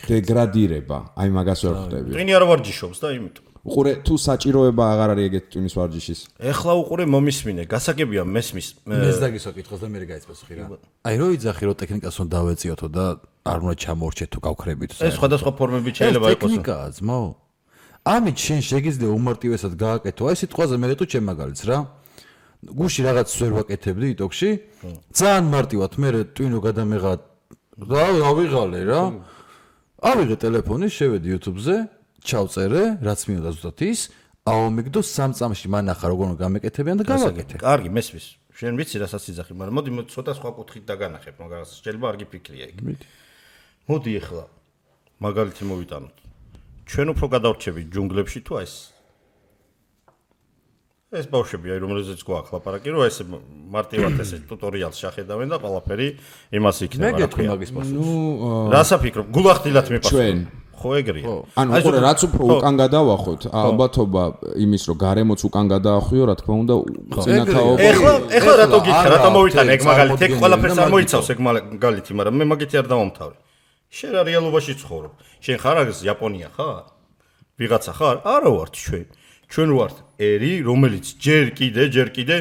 დეგრადირება? აი მაგას ვერ ხვდები.
ტვინი არ ვარჯიშობს და იმიტომ.
უყურე, თუ საჭიროება აღარ არის ეგეთ ტვინის ვარჯიშის.
ეხლა უყურე მომისმინე, გასაგებია მესმის.
ეს დაგისვა კითხოს და მე გაიწესხი რა. აი რო იძახი რომ ტექნიკას უნდა დავეციოთო და არ უნდა ჩამორჩეთ თუ გავხრებით.
ეს სხვადასხვა ფორმებით შეიძლება იყოს.
ტექნიკაა, ძმაო. ამით შენ შეგიძლია უმარტივესად გააკეთო. აი სიტყვაზე მე თუ ჩემ მაგალითს რა. გუში რაღაც ვერ ვაკეთებდი იტოქში. ძალიან მარტივად მე ტვინო გადამეღა და ავიღალე რა. ავიღე ტელეფონი, შევედი YouTube-ზე. ჩავწერე, რაც მინდა ზუსტად ის, ავამიგდო 3 წამში მანახა როგორ გამეკეთებიან და გავაკეთე.
კარგი, მესმის. შენ ვიცი რასაც იძახი, მაგრამ მოდი ცოტა სხვა კუთხით დაგანახებ, მაგას შეიძლება არ გიფიქრია ეგ. მოდი ეხლა მაგალითი მოვიტანოთ. ჩვენ უფრო გადავრჩებით ჯუნგლებში თუ ეს ბავშვები, აი რომელზეც გვაქვს ლაპარაკი, რომ ეს მარტივად ესე ტუტორიალს შეხედავენ და ყველაფერი იმას იქნება, რა ქვია. რას აფიქრობ? გულახდილად მიპასუხე. ჩვენ ხო ეგრეა.
ანუ უყურე, რაც უფრო უკან გადავახოთ, ალბათობა იმის, რომ გარემოც უკან გადაახვიო, რა თქმა უნდა, წინათაობა.
ეხლა რატო გიქრა, რატო მოვიტანე ეგ მაგალითი, ეგ ყველაფერს არ მოიცავს ეგ მაგალითი, მაგრამ მე მაგითი არ დავამთავრე. შენ რა რეალობაში ცხოვრობ? შენ ხარ ეს იაპონია ხარ? ვიღაცა ხარ? არა ვართ ჩვენ. ჩვენ ვართ ერი, რომელიც ჯერ კიდე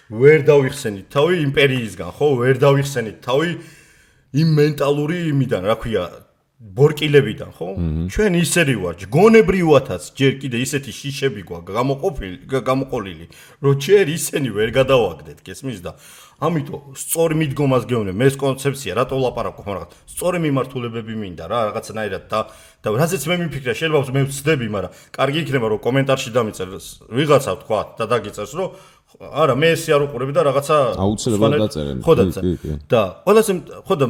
ვერ დავიხსენით თავი იმპერიისგან, ხო? ვერ დავიხსენით თავი იმ მენტალური იმიდან, რა ქვია, ბორკილებიდან, ხო? ჩვენ ისერი ვართ, გონებრივათაც ჯერ კიდე ისეთი შიშები გვაქვს გამოყოლილი, რომ ჯერ ისენი ვერ გადავაგდეთ, გესმის და ამიტომ სწორი მიდგომას გეუბნებ, მე ეს კონცეფცია, რატო ვლაპარაკობ, მაგრამ სწორი მიმართულებები მინდა რა, რაღაცნაირად და რაზეც მე მიფიქრე, შეიძლება მე ვცდები, მაგრამ კარგი იქნება რომ კომენტარში დამიწერს ვიღაცა თქვა და დაგიწერს, რომ არა, მე ესე არ უყურები და რაღაცა
აუცილებლად დაწერენ.
ხო და ყველაზე ხო და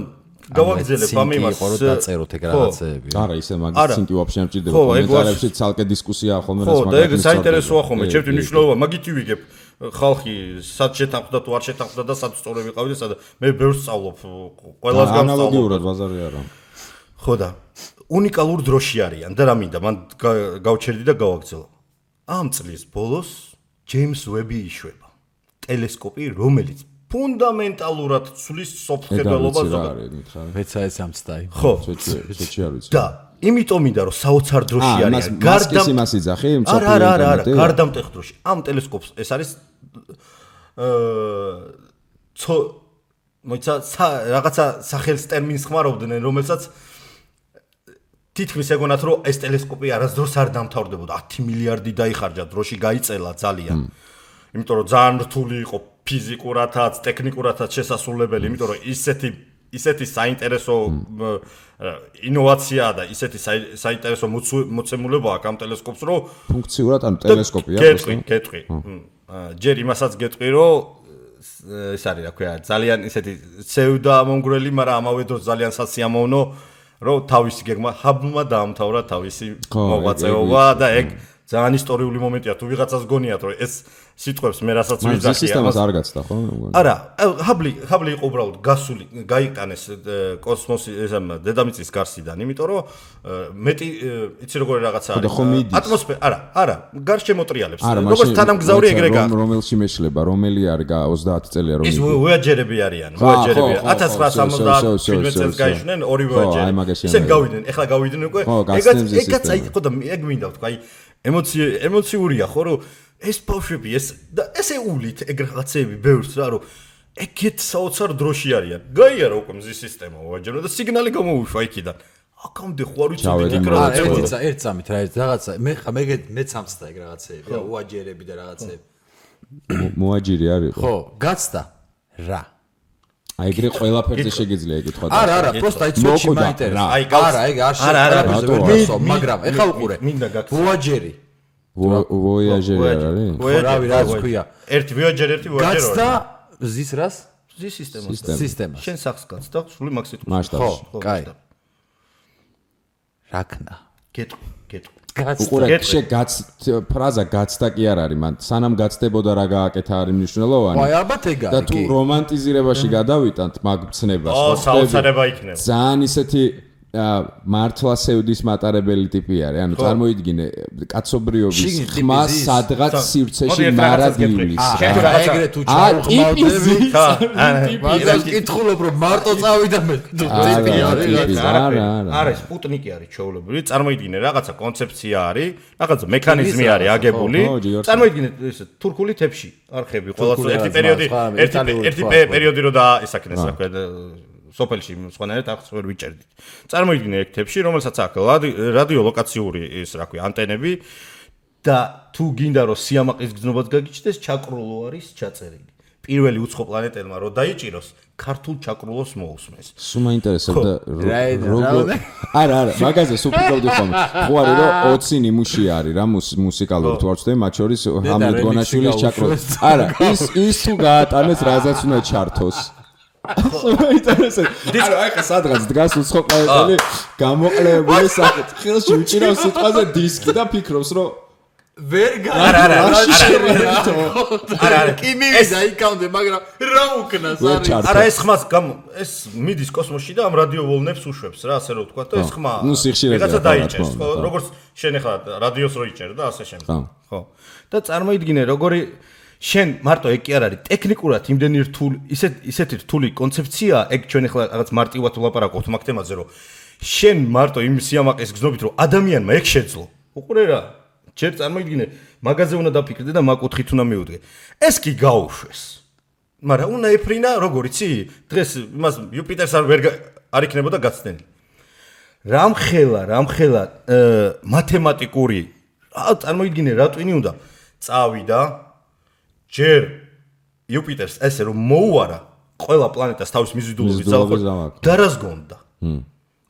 გავაგზელებ ამ იმას.
ხო, დაწეროთ ეგ რაღაცეები.
არა, ისე მაგის ცინკი ვაფშე არ მჭირდება. კომენტარებში ცალკე დისკუსიაა ხოლმე რას
მაგას. ხო, და ეგ საინტერესოა ხოლმე, ჩემთვის მნიშვნელობა, მაგითი ვიგებ. ხალხი სად შეთანხმდა თუ არ შეთანხმდა და სად სწორე ვიყავი და სად მე ბევრს სწავლობ, ყველას გავსწავლობ.
ანალოგიურად ბაზარი არა.
ხო და უნიკალურ დროში არიან და რა მინდა, მან გავჩერდი და გავაგზავნე. ამ წლის ბოლოს ჯეიმს ვები იშვება. ტელესკოპი, რომელიც ფუნდამენტალურად ცვლის სოფხედელობას ზოგადად.
მეცა ეს ამცდაი.
ხო,
ცოტა არ ვიცი.
და იმიტომ მინდა რომ საოცარ დროში არის.
გარდამ იმას იძახი,
არა, გარდამტეხ დროში. ამ ტელესკოპს ეს არის მოიცა რაღაცა სახელს ტერმინს ხმარობდნენ, რომელსაც თითქმის ეგონათ რომ ეს ტელესკოპი არასდროს არ დამთავრდებოდა. 10 მილიარდი დაიხარჯა დროში, გაიწელა ძალიან. იმიტომ რომ ძალიან რთული იყო ფიზიკურათაც, ტექნიკურათაც შესასრულებელი, იმიტომ რომ ისეთი საინტერესო ინოვაციაა და ისეთი საინტერესო მოცემულებაა ამ ტელესკოპს, რომ
ფუნქციურად ან ტელესკოპია
გეტყვი. ჯერ იმასაც გეტყვი, რომ ეს არის რა ქვია, ძალიან ისეთი ცევდამონგრელი, მაგრამ ამავე დროს ძალიან სასიამოვნო, რომ თავისი გეგმა ჰაბლმა დაამთავრა თავისი მოღვაწეობა და ეგ ძალიან ისტორიული მომენტია, თუ ვიღაცას გონიათ, რომ ეს სიტყვებს მე რასაც ვიზახია.
ეს სისტემას არ გაცდა, ხო?
არა, ჰაბლი იყო უბრალოდ გასული, გაიტანეს კოსმოსი დედამიწის გარსიდან, იმიტომ რომ მეტი იცი როგორი რაღაცა არის. ატმოსფერო, არა, გარშემოტრიალებს. როგორც თანამგზავრი ეგრე გა.
რომელში მეშლება, რომელი არის 30 წელია რომ
ის ვოიაჯერები არიან, ვოიაჯერები. 1970 წელს გაიშვნენ ორი ვოიაჯერი. ისე გავიდნენ, ეხლა გავიდნენ უკვე. ეგაც აი ხო და ეგ მინდა ვთქვა, აი ემოციურია ხო რომ ეს ბავშვები ესე ულით ეგ რაღაცეები ბევრს რა რომ ეგეთ საოცარ დროში არიან. გაიარა უკვე მზის სისტემა ვაჯერო და სიგნალი გამოუშვა იქიდან. აკამდე ხო არ ვიცოდი იქ რაღაცა.
ერთ წამით რა რაღაცა მეც ამცდა ეგ რაღაცეები რა უაჯერები და რაღაცეები.
მოაჯირი არის
ხო, გაცდა რა.
აი ეგრე ყველაფერზე შეგიძლია ეკითხვა.
არა, просто აი ცოტა მაინტერესებს. არა, ეგ არ შეიძლება, მაგრამ ეხა უყურე.
მინდა გაქცე.
ვოაჯერი.
ვოიაჟერი არის?
რავი, რაც ქვია.
ერთი ვოიაჯერი, ერთი ვოიაჯერი.
გაცდა ზის რას?
ზის
სისტემას.
შენ სახს გაცდა, სული მაგ სიტყვას.
მასშტაბში.
ხო, კაი. რაკნა.
გეტყვი.
უყურე, ფრაზა გაცდა კი არ არის, მან სანამ გაცდებოდა რა გააკეთა არის მნიშვნელოვანი.
აი, ალბათ ეგ არის.
და თუ რომანტიზირებაში გადავიტანთ მაგ ცნებას,
საოცარება იქნება.
ძალიან ისეთი მართლა სევდის მატარებელი ტიპი არის. ანუ წარმოიდგინე, კაცობრიობის ხმა სადღაც სივრცეში მარადიulis.
ეგრე თუ ჩაუყმავდები, მაგრამ კითხულობ რომ მარტო წავიდა მე. ტიპი არის.
არა, სპუტნიკი არის ჩაოლებრივი. წარმოიდგინე, რაღაცა კონცეფცია არის, რაღაცა მექანიზმი არის აგებული. წარმოიდგინე ეს თურქული თეფში არხები, ყოველას ერთი პერიოდი რო დაისაკნეს, რა ქვია, სოფელში სხვანაირად ახს ვერ ვიჭერდით. წარმოიდგინე ეგ თეფში, რომელსაც აქვს რადიოლოკაციური ის რა ქვია, ანტენები და თუ გინდა რომ სიამაყის გზნობაც გაგიჩნდეს, ჩაკრულო არის ჩაწერილი. პირველი უცხო პლანეტელმა რო დაიჭიროს, ქართულ ჩაკრულოს მოусმეს.
სულ მაინტერესებდა როგორ არა, მაგაზე სულ ფიქრობდი ხოლმე. ხო არის რომ 20 ნიმუში არის რა მუსიკალური თუ არ ვცდები, მათ შორის ჰამლეტ გონაშვილის ჩაკრულო. არა, ის თუ გაატანეს, რაზეც უნდა ჩართოს. ინტერესant. აი ხა სადღაც დგას უცხო პლანეტელი გამოყლებული სახით. ხელში უჭირავს სიტყვაზე დისკი და ფიქრობს რომ
ვერ
არა.
კი მივიდა იქამდე, მაგრამ რა უკნას არის.
არა ეს ხმას ეს მიდის კოსმოსში და ამ რადიოვოლნებს უშვებს რა, ასე რომ ვთქვა და ეს ხმა რაღაცა დაიჭერს, ხო, როგორც შენ ახლა რადიოს რო იჭერ და ასე შემდეგ. ხო. და წარმოიდგინე როგორი შენ მარტო ეგ კი არ არის ტექნიკურად იმდენი რთული ისეთი რთული კონცეფცია ეგ ჩვენ ახლა რაღაც მარტივად ვლაპარაკობთ მაგ თემაზე რომ შენ მარტო იმ სიამაყეს გზნობთ რომ ადამიანმა ეგ შეძლო უყურე რა ჯერ წარმოიდგინე მაგაზე უნდა დაფიქრდე და მაგ კუთხით უნდა მიუდგე ეს კი გაუშვეს მაგრამ უნდა ეფრინა როგორ იცი დღეს იმას იუპიტერს არ იქნებოდა გაცდენი რამხელა მათემატიკური წარმოიდგინე რა ტვინი უნდა წავიდა ჯერ იუპიტერს ესე რომ მოუარა ყველა პლანეტას თავის მიზიდულობის ძალაყოლ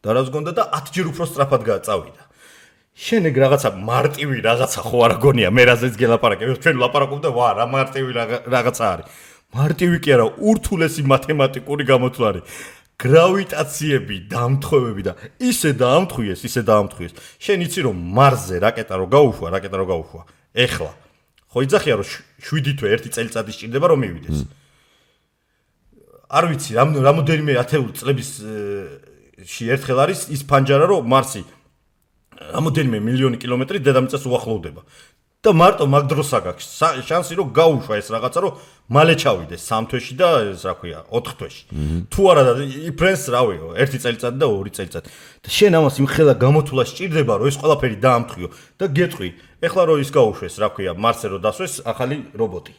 დარაზგონდა და 10 ჯერ უფრო სწრაფად გააწავიდა. შენ ეგ რაღაცა მარტივი რაღაცა ხო არა გონია მე რაზეც გელაპარაკებ ჩვენ ვლაპარაკობ და ვა რა მარტივი რაღაცა არის. მარტივი კი არა ურთულესი მათემატიკური გამოთვლა არის. გრავიტაციები, დამთხოვები და ისე დაამთხვიეს. შენ იცი რომ მარსზე რაკეტა რო გაუშვა. ეხლა ხო იძახია რომ 7 თვე 1 წელიწადი სჭირდება რომ მივიდეს. არ ვიცი რამოდენიმე ათეული წლების ერთხელ არის ის ფანჯარა რომ მარსი რამოდენიმე მილიონი კილომეტრი დედამიწას უახლოვდება. და მარტო მაგ დროს აგაქვს შანსი რომ გაუშვა ეს რაღაცა რომ მალე ჩავიდეს 3 თვეში და ეს რა ქვია 4 თვეში. თუ არა და იფრენს რავიო 1 წელიწადი და 2 წელიწადი. და შენ ამას იმხელა გამოთვლა სჭირდება რომ ეს ყველაფერი დაამთხვიო და გეტყვი ეხლა რომ ის გაუშვეს რა ქვია მარსზე რომ დასვეს ახალი რობოტი.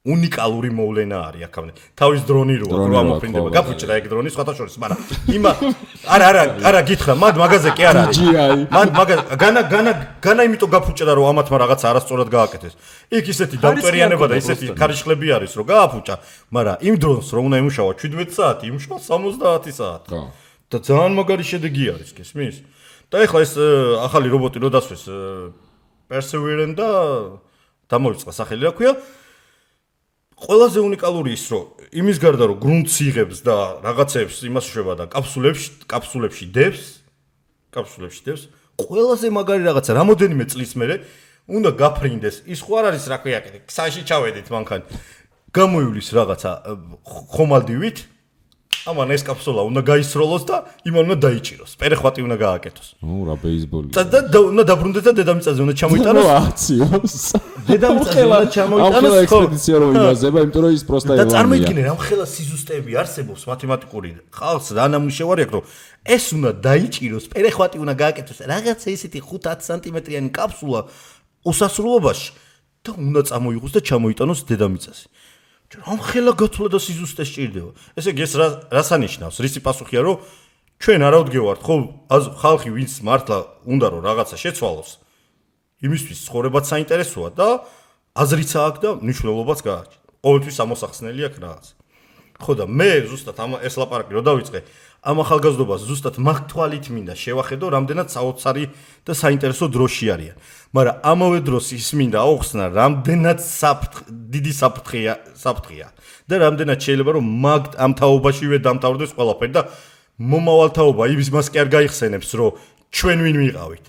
უნიკალური მოვლენა არის აქამდე. თავის დრონი როა ამოფრინდება. გაფუჭდა ეგ დრონი სხვათა შორის, მაგრამ იმა არა გითხრა, მან მაგაზე კი არ არის. მან განა იმიტომ გაფუჭდა რომ ამათმა რაღაცა არასწორად გააკეთეს. იქ ისეთი დამტვერიანება და ისეთი ქარიშხლები არის რომ გააფუჭა, მაგრამ იმ დრონს რომ უნდა იმუშავა 17 საათი, იმუშავა 70 საათი. და ძალიან მაგარი შედეგი არის, გესმის? და ეხლა ეს ახალი რობოტი რო დასვეს Perseverance და დამოიწყა სახელი რა ქვია? ყველაზე უნიკალური ის რომ იმის გარდა რომ გრუნტს იღებს და რაღაცებს იმას შვება და კაფსულებში დევს ყველაზე მაგარი რაღაცა რამოდენიმე წლის მერე უნდა გაფრინდეს ის ხო არ არის რა ქვია ქსაში ჩავედით მანქანი გამოივლის რაღაცა ხომალდივით ამან ეს კაფსულა უნდა გაისროლოს და იმან უნდა დაიჭიროს პერეხვატი უნდა გააკეთოს
რა ბეისბოლი
და უნდა დაბრუნდეს და დედამიწაზე უნდა ჩამოიტანოს
აციოს
დედამიწაზე უნდა ჩამოიტანოს
ხო ექსპედიცია რომ იმაზება იმიტომ რომ ის პროსტა
და წარმოიდგინე რამხელა სიზუსტეები არსებობს მათემატიკური ხალხს რა ნამუშევარი აქვს რომ ეს უნდა დაიჭიროს პერეხვატი უნდა გააკეთოს რაღაცა ისეთი 5-10 სანტიმეტრიანი კაფსულა უსასრულობაში და უნდა წამოიღოს და ჩამოიტანოს დედამიწაზე რამხელა გათვლა და სიზუსტე სჭირდება. ესე იგი ეს რას ანიშნავს? რისი პასუხია რომ ჩვენ არა ვდგევართ ხო ხალხი ვინც მართლა უნდა რომ რაღაცა შეცვალოს. იმისთვის ცხოვრებაც საინტერესოა და აზრიც აქვს და მნიშვნელობაც გააჩნია. ყოველთვის ამოსახსნელი აქვს რაღაცა. ხო და მე ზუსტად ეს ლაპარაკი რო დავიწყე ამ ახალგაზრდობას ზუსტად მაგ თვალით მინდა შევახედო რამდენად საოცარი და საინტერესო დროში არიან. მაგრამ ამავე დროს ის მინდა აუხსნა რამდენად დიდი საფრთხეა და რამდენად შეიძლება რომ მაგ ამ თაობაშივე დამთავრდეს ყველაფერი და მომავალ თაობა იმის კი არ გაიხსენებს რომ ჩვენ ვინ ვიყავით.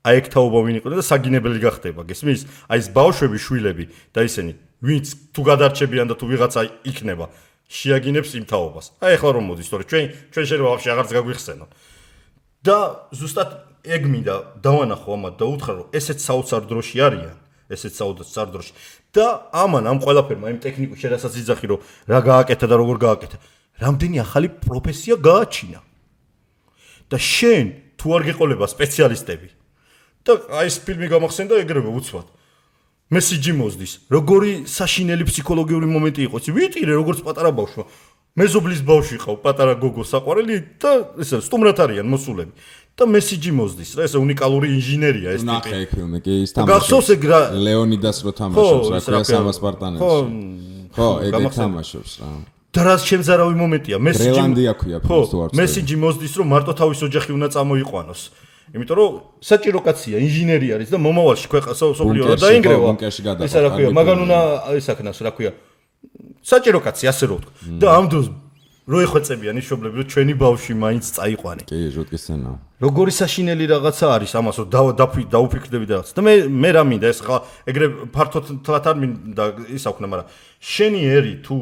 აი ეგ თაობა ვინ იყო და საგინებელი გახდება გესმის? აი ეს ბავშვები შვილები და ისინი ვინც თუ გადარჩებიან და თუ ვიღაცა იქნება შეაგინებს იმ თაობას. აი ახლა რომ მოდის, თორე ჩვენ შეიძლება ვაფშე აღარც გაგვიხსენო. და ზუსტად ეგ მინდა დავანახო ამათ და უთხრა რომ ესეც საოცარ დროში არიან, ესეც საოცარ დროში. და ამან ამ ყველაფერმა იმ ტექნიკურ შედასაც იძახი რომ რა გააკეთა და როგორ გააკეთა. რამდენი ახალი პროფესია გააჩინა. და შენ თუ არ გეყოლება სპეციალისტები და აი ეს ფილმი გამახსენდა ეგრევე უცბად. მესიჯი მოზდის. როგორი საშინელი ფსიქოლოგიური მომენტი იყო. ვიტირე როგორც პატარა ბავშვმა. მეზობლის ბავშვი ყავ, პატარა გოგო საყვარელი და ესე სტუმრად არიან მოსულები. და მესიჯი მოზდის. რა ესე უნიკალური ინჟინერია ეს ტიპი.
ნახე ეგ ფილმი, კი ის თამაშობს. ლეონიდას რო თამაშობს, რა ქვია სამასპარტანელში. ხო, ეგ თამაშობს რა.
და რაც შემზარავი მომენტია,
მესიჯი ქვია ფილმს თუ არ
ვიცი. მესიჯი მოზდის რომ მარტო თავის ოჯახი უნდა წამოიყვანოს. იმიტომ რომ საჭირო კაცია, ინჟინერი არის და მომავალში სოფლიო დაინგრევა. ესა რა ქვია, მაგან უნდა ესაქნას რა ქვია. საჭირო კაცი ასე რო ვთქვა. და ამ დროს რო ეხვეწებიან ის მშობლები რომ ჩვენი ბავშვი მაინც წაიყვანე.
კი, ჟოტკის სცენა.
როგორი საშინელი რაღაცა არის ამას რომ დაუფიქრდები და რაღაცა. და მე რა მინდა ეს ხა ეგრე ფართოდ თლათ არ მინდა ის აქვნა, მაგრამ შენი ერი თუ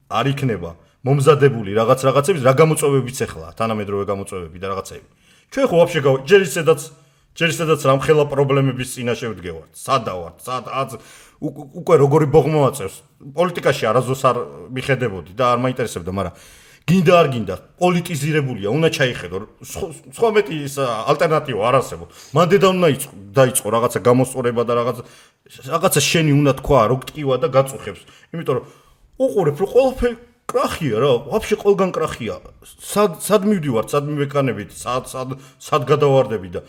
არ იქნება მომზადებული რაღაცების რა გამოწვევებიც ეხლა, თანამედროვე გამოწვევები და რაღაცები. ჩვენ ხო ვაფშე ჯერ ისედაც რამხელა პრობლემების წინაშე ვდგევართ. სადავართ, უკვე როგორი ბოღმა აწევს. პოლიტიკაში არაზოს არ მიხედებოდი და არ მაინტერესებდა, მაგრამ გინდა არ გინდა, პოლიტიზირებულია, უნდა ჩაიხედო. სხვა მეტი ის ალტერნატივა არ არსებობს. მან დედა უნდა დაიწყო რაღაცა გამოსწორება და რაღაცა შენი უნდა თქვა, რო გტკივა და გაწუხებს. იმიტომ რომ უყურებ რომ ყველაფერი კრახია რა, ვაფშე ყველგან კრახია. სად მივდივართ, სად მივეკანებით, სად გადავარდები და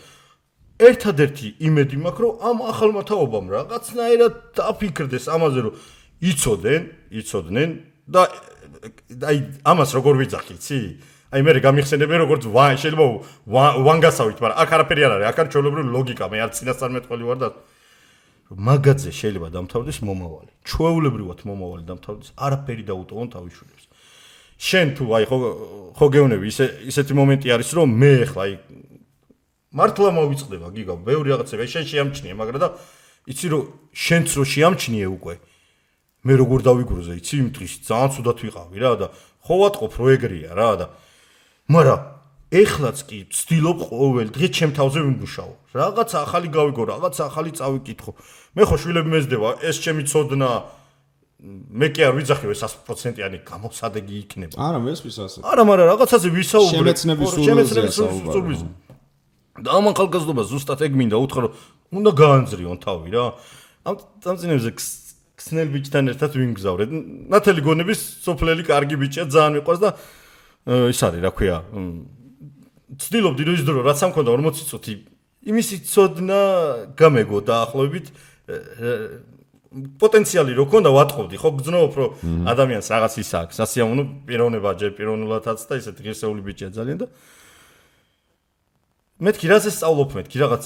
ერთადერთი იმედი მაქვს რომ ამ ახალმა თაობამ რაღაცნაირად დაფიქრდეს ამაზე რომ იცოდნენ და აი ამას როგორ ვიძახი, იცი? აი მე გამიხსენებენ როგორც შეიძლება ვანგასავით, მაგრამ აქ არაფერი არ არის, აქ არის ჩვეულებრივი ლოგიკა, მე არ წინასწარმეტყველი ვარ და მაგაზე შეიძლება დამთავრდეს მომავალი. ჩვეულებრივად მომავალი დამთავრდეს, არაფერი დაუტოვონ თავის შვილებს. შენ თუ აი ხო გეუნები ისეთი მომენტი არის რომ მე ახლა აი მართლა მოვიწყდება გიგა, ბევრი რაღაცები შენ შეამჩნიე, მაგრამ და იცი რომ შენც რო შეამჩნიე უკვე მე როგორ დავიგროზე, იცი იმ დღის ძალიან ცუდად ვიყავი რა და ხო ვატყობ რო ეგრეა რა და მაგრამ ეხლაც კი ვცდილობ ყოველ დღე ჩემ თავზე ვიმუშაო. რაღაცა ახალი გავიგო, რაღაცა ახალი წავიკითხო. მე ხო შვილები მეძდება, ეს ჩემი ცოდნა მე კი არ ვიძახი 100%-იანი გამოსადეგი იქნება.
არა, მესმის ასე.
არა, მაგრამ რაღაცაზე ვისაუბრე.
შემეცნების სურვილზე.
და ამ ახალგაზრდობას ზუსტად ეგ მინდა უთხრა, რომ უნდა გაანძრიონ თავი რა. ამ წინებზე ქსნელ ბიჭთან ერთად ვიმგზავრეთ. ნათელი გონების სოფლელი კარგი ბიჭია, ძალიან მიყვარს და ის არის, რა ქვია, ცდილობდი რომ ის დრო რაც ამ მქონდა 40 წუთი იმისი ცოდნა გამეგო დაახლოებით პოტენციალი რო ქონდა ვატყობდი, ხო გძნობ რომ ადამიანს რაღაც ის აქვს, სასიამოვნო პიროვნება ჯერ პიროვნულადაც და ისეთი ღირსეული ბიჭია ძალიან და მეთქი რაზე სწავლობ მეთქი რაღაც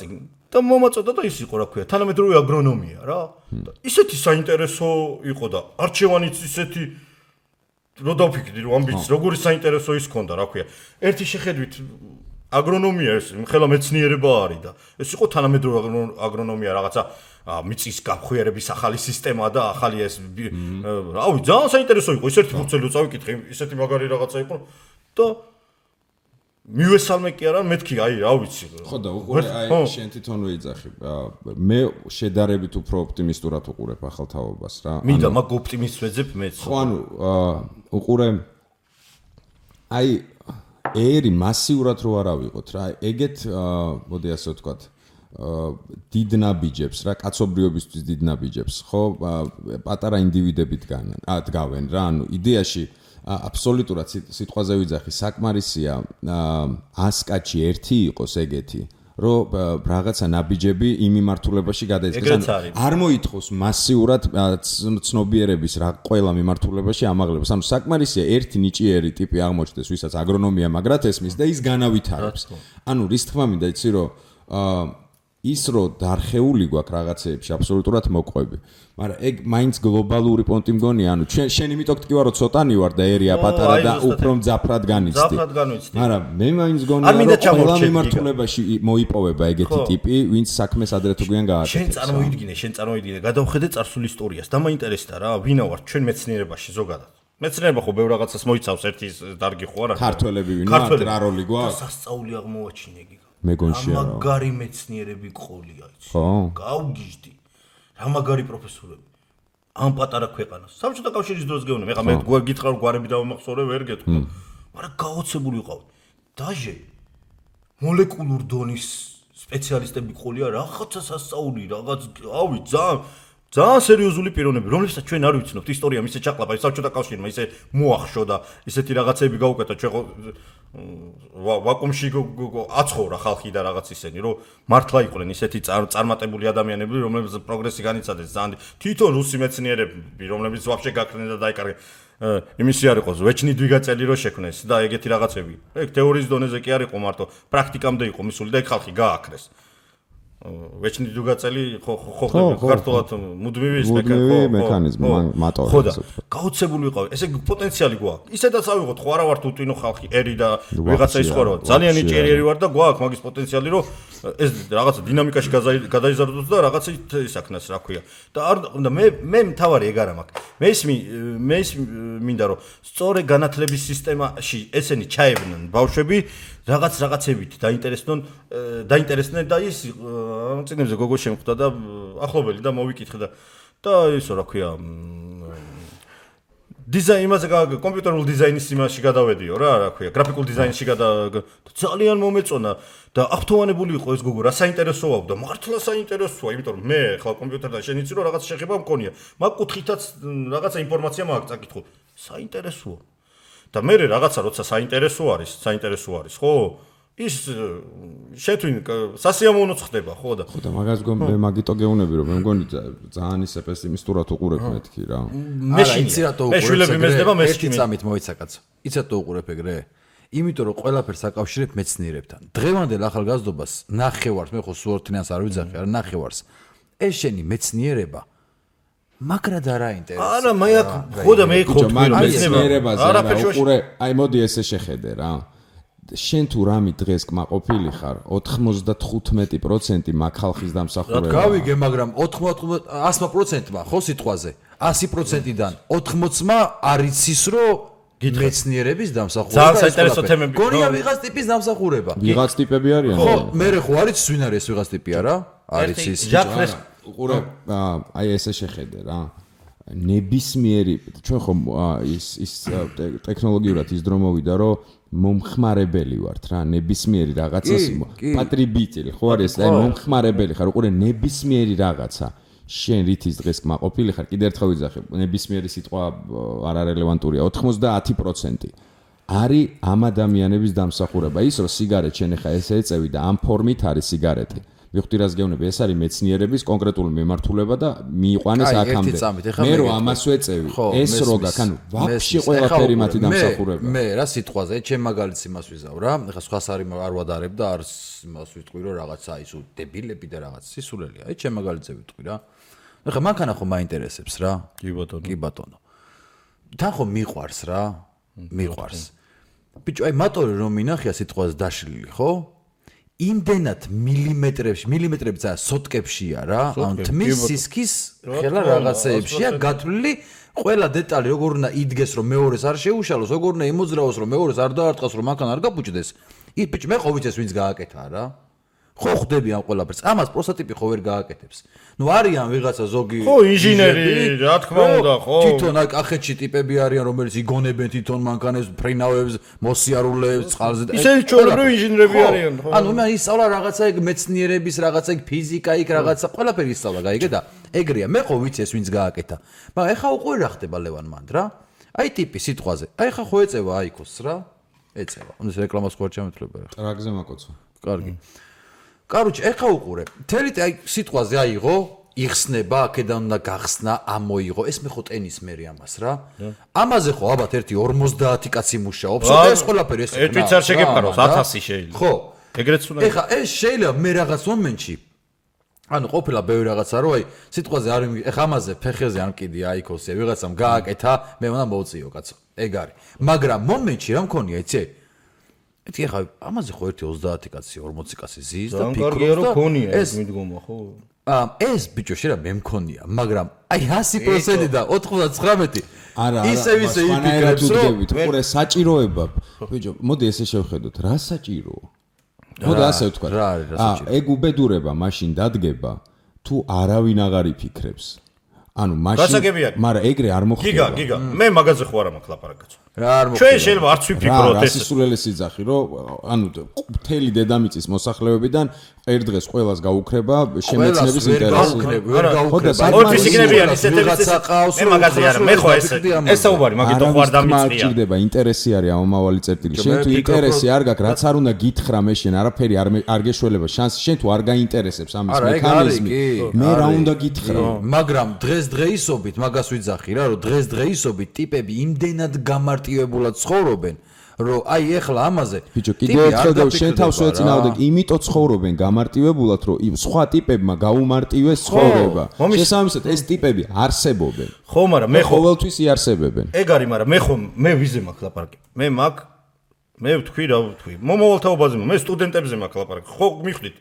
და მომაწოდა და ის იყო რა ქვია, თანამედროვე აგრონომია რა. და ისეთი საინტერესო იყო და არჩევანიც ისეთი რო დავფიქრდი რომ ამ ბიჭს როგორი საინტერესო ის ქონდა რა ქვია. ერთი შეხედვით აგრონომია ეს ხელა მეცნიერება არის და ეს იყო თანამედროვე აგრონომია რაღაცა მიწის გახვიერების ახალი სისტემა და ახალი ეს რავი ძალიან საინტერესო იყო ისეთი ფურცელი წავიკითხე ისეთი მაგარი რაღაცა იყო და მივესალმე კი არა მეთქი აი რა ვიცი
ხო და უყურე აი შენ თვითონ ვიძახი მე შედარებით უფრო ოპტიმისტურად უყურებ ახალ თაობას რა
მინდა მაგ ოპტიმისტს ვეძებ მეც
ხო ანუ უყურე აი ერი მასიურად რო არ ავიღოთ რა ეგეთ მოდი ასე ვთქვათ დიდ ნაბიჯებს რა კაცობრიობისთვის დიდ ნაბიჯებს ხო პატარა ინდივიდები დგავენ რა ანუ იდეაში აბსოლუტურად სიტყვაზე ვიძახი საკმარისია 100 კაცი ერთი იყოს ეგეთი რომ რაღაცა ნაბიჯები იმ მიმართულებაში გადაიწყდეს არ მოითხოვს მასიურად ცნობიერების რა ყველა მიმართულებაში ამაღლებას ანუ საკმარისია ერთი ნიჭიერი ტიპი აღმოჩნდეს ვისაც აგრონომია მაგრად ესმის და ის განავითარებს ანუ რის თქმა მინდა იცი რომ ის რო დარხეული გვაქვს რაღაცეებში აბსოლუტურად მოყვები მაგრამ ეგ მაინც გლობალური პონტი მგონია ანუ შენ იმიტომ გტკივა რომ ცოტანი ვარ და ერია პატარა და უფრო მძაფრად განიცდი მაგრამ მე მაინც გონია რომ ყველა მიმართულებაში მოიპოვება ეგეთი ტიპი ვინც საქმეს ადრე თუ გვიან გააკეთებს
შენ წარმოიდგინე გადავხედე წარსულ ისტორიას და მაინტერესდა რა ვინა ვარ ჩვენ მეცნიერებაში ზოგადად მეცნიერება ხო ბევრ რაღაცას მოიცავს ერთი დარგი ხო არა
ქართველები ვინმე რა როლი გვაქვს
სასწაული აღმოაჩინე
მეგონშია რა
მაგარი მეცნიერები ყოლია იცი
ხო
გავგიჟდი რა მაგარი პროფესორები ამ პატარა ქვეყანას საბჭოთა კავშირის დროს გეუბნები ეხლა მე გითხრა რომ გვარები დავამახსოვრე ვერ გეტყვი მაგრამ გაოცებული ვიყავი დაჟე მოლეკულურ დონის სპეციალისტები ყოლია რაღაცა სასწაული რაღაც ავი ძალიან სერიოზული პიროვნები რომლებსაც ჩვენ არ ვიცნობთ ისტორია მისე ჩაყლაპა საბჭოთა კავშირმა ისე მოახშო და ისეთი რაღაცები გაუკეთა ჩვენ ვაკუუმში აცხოვრა ხალხი და რაღაც ისენი რომ მართლა იყვნენ ისეთი წარმატებული ადამიანები რომლებიც პროგრესი განიცადეს ძალიან თვითონ რუსი მეცნიერები რომლებიც ვაფშე გაქრნენ და დაიკარგნენ იმისი არ იყოს ვეჩნი დვიგაწელი რო შექმნეს და ეგეთი რაღაცები ეგ თეორიის დონეზე კი არ იყო მარტო პრაქტიკამდე იყო მისული და ეგ ხალხი გააქრეს ვეჩნი დვიგაწელი ხო ქართულად მუდმივი ის
მექანიზმი მატორი
ხო და გაოცებული ვიყავი ესე პოტენციალი გვაქვს ისედაც ავიღოთ ხო არა ვართ უტვინო ხალხი ერი და ვიღაცა ის ხო რა ძალიან ნიჭიერი ვარ და გვაქვს მაგის პოტენციალი რომ ეს რაღაცა დინამიკაში გადაიზარდოს და რაღაცა ისაქნას რა ქვია და მე მთავარი ეგ არა მაქვს მე მინდა რომ სწორე განათლების სისტემაში ესენი ჩაებნან ბავშვები რაღაცებით დაინტერესდნენ და ის წინებზე გოგო შემხვდა და ახლობელი და მოვიკითხე და ისო რა ქვია დიზაინზე კომპიუტერულ დიზაინის იმაში გადავედიო რა ქვია გრაფიკულ დიზაინში ძალიან მომეწონა და აღთოვანებული იყო ეს გოგო რა საინტერესოა და მართლა საინტერესოა იმიტომ რომ მე ხლა კომპიუტერთან შენ იცი რომ რაღაც შეხება მქონია მაგ კუთხითაც რაღაცა ინფორმაცია მაქვს წაკითხო საინტერესოა და მე რაღაცა როცა საინტერესო არის ხო ის შეთვინ სასიამოვნოც ხდება ხო და
მაგას მე მაგიტო გეუნები რომ მე მგონი ძალიან ისე პესიმისტურად უყურებ მეთქი რა
მე იცი რატო უყურებ ერთი წამით მოიცა კაცო იცი რატო უყურებ ეგრე იმიტომ რომ ყველაფერს აკავშირებ მეცნიერებთან დღევანდელ ახალგაზრდობას ნახევარს მე ხო სუორთინას არ ვიძახი არა ნახევარს ეს შენი მეცნიერება მაგრად არ აინტერესებს
არა მე ხო და მე ხო
მეცნიერებაზე რა უყურე აი მოდი ესე შეხედე რა შენ თუ რამე დღეს კმაყოფილი ხარ 95% მაგ ხალხის დამსახურება.
გავიგე, მაგრამ 100%-მა ხო სიტყვაზე 100%-დან 80-მა არის ის რომ მეცნიერების დამსახურება.
ძალიან საინტერესო თემები.
გონია ვიღაც ტიპის დამსახურება.
ვიღაც ტიპები არიან?
ხო, მე ხო არის ვინ არის ვიღაც ტიპი არა? არის ის.
უყურე, აი ესე შეხედე რა. ნებისმიერი ჩვენ ხომ ის ტექნოლოგიურად ის დრო მოვიდა რომ მომხმარებელი ვართ რა ნებისმიერი რაღაცას პატრიბიტელი ხო არის აი მომხმარებელი ხარ უყურე ნებისმიერი რაღაცა შენ რითის დღეს კმაყოფილი ხარ, კიდე ერთხელ ვიძახე, ნებისმიერი სიტყვა არ არელევანტურია, 90% არის ამ ადამიანების დამსახურება. ის რომ სიგარეტ შენ ხა ესე ეწევი და ამ ფორმით არის სიგარეტი. მივხვდი რას გეუბნები, ეს არის მეცნიერების კონკრეტული მიმართულება და მიიყვანეს აქამდე. მე რომ ამას ვეწევი, ეს რო გაქვს, ანუ ვაფშე ყველაფერი მათი დამსახურება.
მე რა სიტყვაზე, ჩემ მაგალითს იმას ვიზავ რა, ეხლა სხვას არ ვადარებ და არ იმას ვიტყვი რომ რაღაცა ისო დებილები და რაღაც სისულელია. აი ჩემ მაგალითზე ვიტყვი რა. ეხლა მანქანა ხო მაინტერესებს რა.
კი ბატონო.
თან ხო მიყვარს რა. მიყვარს. ბიჭო, აი მატორი რომ მინახია სიტყვაზე დაშლილი, ხო? იმდენად მილიმეტრები და სოტკებშია რა, ან თმის სისქის ხელა რაღაცეებშია გათვლილი ყველა დეტალი, როგორ უნდა იდგეს რომ მეორეს არ შეუშალოს, როგორ უნდა იმოძრავოს რომ მეორეს არ დაარტყას რომ მანქანა არ გაბუჭდეს. ბიჭო, მე ხო ვიცეს ვინც გააკეთა რა. ხო ხვდები ამ ყველაფერს. ამას პროსტატიპი ხო ვერ გააკეთებს. ნუ არიან ვიღაცა ზოგი
ხო ინჟინერი, რა თქმა უნდა, ხო.
თვითონ აი კახეთში ტიპები არიან, რომელიც იგონებენ თვითონ მანქანებს, ფრინავებს, მოსიარულეებს, წყალზე და
ისინი ჩვეულებრივი ინჟინერები არიან, ხო.
ანუ მე ისწავლა რაღაცა ეგ მეცნიერების, რაღაცა ეგ ფიზიკა, იქ რაღაცა ყველაფერი ისწავლა, გაიგე და ეგრეა. მე ხო ვიცი ეს ვინც გააკეთა. მაგრამ ეხა უკვე რა ხდება ლევან მანდ რა? აი ტიპი სიტყვაზე. აი ხა ხო ეწევა აიქოს რა? ეწევა. ანუ ეს რეკლამას ხო არ ჩამეთვლება რა.
ტრაგზე მაკოცო.
კარგი. კაროჩე, ეხა უყურე. თელი აი სიტყვაზე აიღო, იხსნება, აქედან უნდა გახსნა, ამოიღო. ეს მე ხო ტენის მერი ამას რა. ამაზე ხო ალბათ ერთი 50 კაცი მუშაობს. ეს ყველაფერი ეს.
ერთ ვიც არ შეგეპაროს 1000 შეიძლება.
ხო.
ეგრეც უნდა.
ეხა ეს შეიძლება მე რაღაც მომენტში ანუ ყოფილა ბევრი რაღაცა რო აი სიტყვაზე არ ეხა ამაზე ფეხეზე ან კიდე აიქოსია ვიღაცამ გააკეთა, მე უნდა მოვწიო კაცო. ეგ არის. მაგრამ მომენტში რა მქონია, იცი? ეთი ახლა ამაზე ხო ერთი 30 კაცი 40 კაცი ზის და
ფიქრობს და ეს მიდგომა ხო?
ეს ბიჭო შეიძლება მე მქონია, მაგრამ აი 100% და 99
არა,
ისე იფიქრებს რომ
ყურე საჭიროება. ბიჭო, მოდი ესე შევხედოთ, რა საჭიროა? მოდი ასე ვთქვა. ეგ უბედურება მაშინ დადგება, თუ არავინ აღარ იფიქრებს. ანუ მაშინ მაგრამ ეგრე არ მოხდება.
გიგა, მე მაგაზე ხო არა მაქვს ლაპარაკაც.
რა არ მოხდება.
ჩვენ შეიძლება არც ვიფიქროთ ეს.
რა სისულელეს იძახი, რომ ანუ მთელი დედამიწის მოსახლეობიდან ერთ დღეს ყველას გაუქრება შემეცნების ინტერესი.
ვერ გაუქრება.
ორფის იქნებიან ისეთებიც. მე მაგაზე არა, მე ხო ეს საუბარი, მაგით ხო არ დამიწყია.
ჭირდება ინტერესი არის ამავალი წერტილი. შენ თუ ინტერესი არ გაქვს, რაც არ უნდა გითხრა მე შენ არაფერი არ გეშველება შანსი, შენ თუ არ გაინტერესებს ამის მექანიზმი, მე რა უნდა გითხრა.
მაგრამ დღესდღეობით მაგას ვიძახი რა, რომ დღესდღეობით ტიპები იმდენად გამარტივებულად ცხოვრობენ, რომ აი ეხლა ამაზე
ბიჭო კიდევ ერთხელ და შენ თავს ვეწინაოდე, იმიტომ ცხოვრობენ გამარტივებულად, რომ სხვა ტიპებმა გაუმარტივეს ცხოვრება. შესაბამისად ეს ტიპები არსებობენ.
ხო, მაგრამ მე
ყოველთვის იარსებებენ.
ეგ არის, მაგრამ მე ვიზე მაქვს ლაპარაკი. მე ვთქვი რა ვთქვი. მომავალთაობაზე მე სტუდენტებზე მაქვს ლაპარაკი. ხო მიხვდით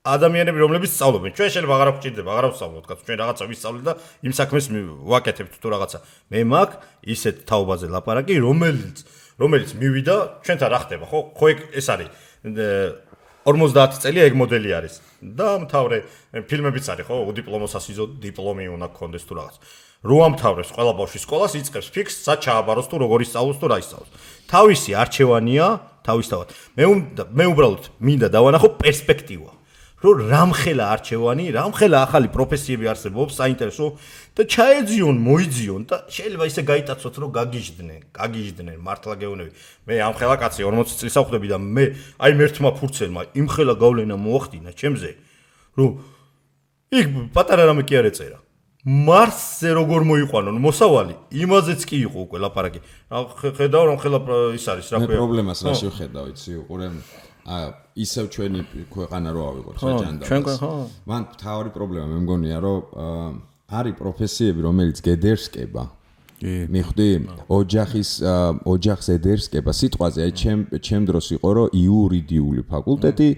ადამიანები რომლებიც სწავლობენ. ჩვენ შეიძლება აღარ გვჭირდება, აღარ ვსწავლოთ, კაცო, ჩვენ რაღაცა ვისწავლეთ და იმ საქმეს ვაკეთებთ თუ რაღაცა. მე მაქვს ისეთ თაობაზე ლაპარაკი, რომელიც მივიდა, ჩვენთან რა ხდება, ხო? ხო ეს არის 50 წელია ეგ მოდელი არის. და მთავრე ფილმებიც არის, ხო? უდიპლომო სასიზო დიპლომი უნდა გქონდეს თუ რაღაც. რო ამთავრებს ყველა ბავშვი სკოლას, იწყებს ფიქს, სად ჩააბაროს თუ როგორ ისწავლოს თუ რა ისწავლოს. თავისი არჩევანია, თავისთავად. მე უბრალოდ მინდა დავანახო პერსპექტივა. რომ რამხელა არჩევანი, რამხელა ახალი პროფესიები არსებობს, საინტერესო და ჩაეძიონ, მოიძიონ და შეიძლება ისე გაიტაცოთ, რომ გაგიჟდნენ, მართლა გეუბნები. მე ამხელა კაცი 40 წლის ავხდები და მე აი მერთმა ფურცელმა იმხელა გავლენა მოახდინა ჩემზე, რომ იქ პატარა რამე კი არ ეწერა. მარსზე როგორ მოიყვანონ მოსავალი, იმაზეც კი იყო უკვე ლაპარაკი. ხედავ რამხელა ის არის, რა ქვია.
მე პრობლემას რა შევხედავ, იცი, უყურე ისევ ჩვენი ქვეყანა რო ავიღოთ რა ჯანდაბას. მან თავი პრობლემა მე მგონია რომ არის პროფესიები რომელიც გედერსკება. მიხვდი? ოჯახს ედერსკება. სიტყვაზე აი ჩემ დროს იყო რომ იურიდიული ფაკულტეტი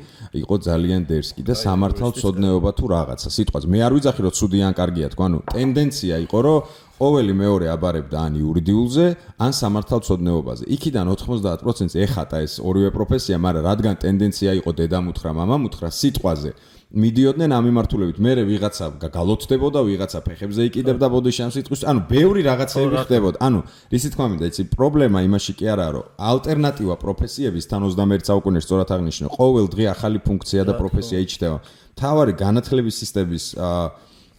იყო ძალიან დერსკი და სამართალმცოდნეობა თუ რაღაცა. სიტყვაზე მე არ ვიძახი რომ ცუდი ან კარგია თქვა, ანუ ტენდენცია იყო რომ ყოველი მეორე აბარებდა ან იურიდიულზე, ან სამართალმცოდნეობაზე. იქიდან 90% ეხატა ეს ორივე პროფესია, მაგრამ რადგან ტენდენცია იყო დედამუთხრა, მამამუთხრა სიტყვაზე მიდიოდნენ ამ მიმართულებით. მე ვიღაცა გალოცდებოდა, ვიღაცა ფეხებზე იკიდებდა ბოდიში ამ სიტყვის. ანუ ბევრი რაღაცები ხდებოდა. ანუ რისი თქმა მინდა, იცი, პრობლემა იმაში კი არაა, რომ ალტერნატივა პროფესიების თან 21 საუკუნეში სწორად აღნიშნე, ყოველ დღე ახალი ფუნქცია და პროფესია იჩნდება. მთავარი განათლების სისტემის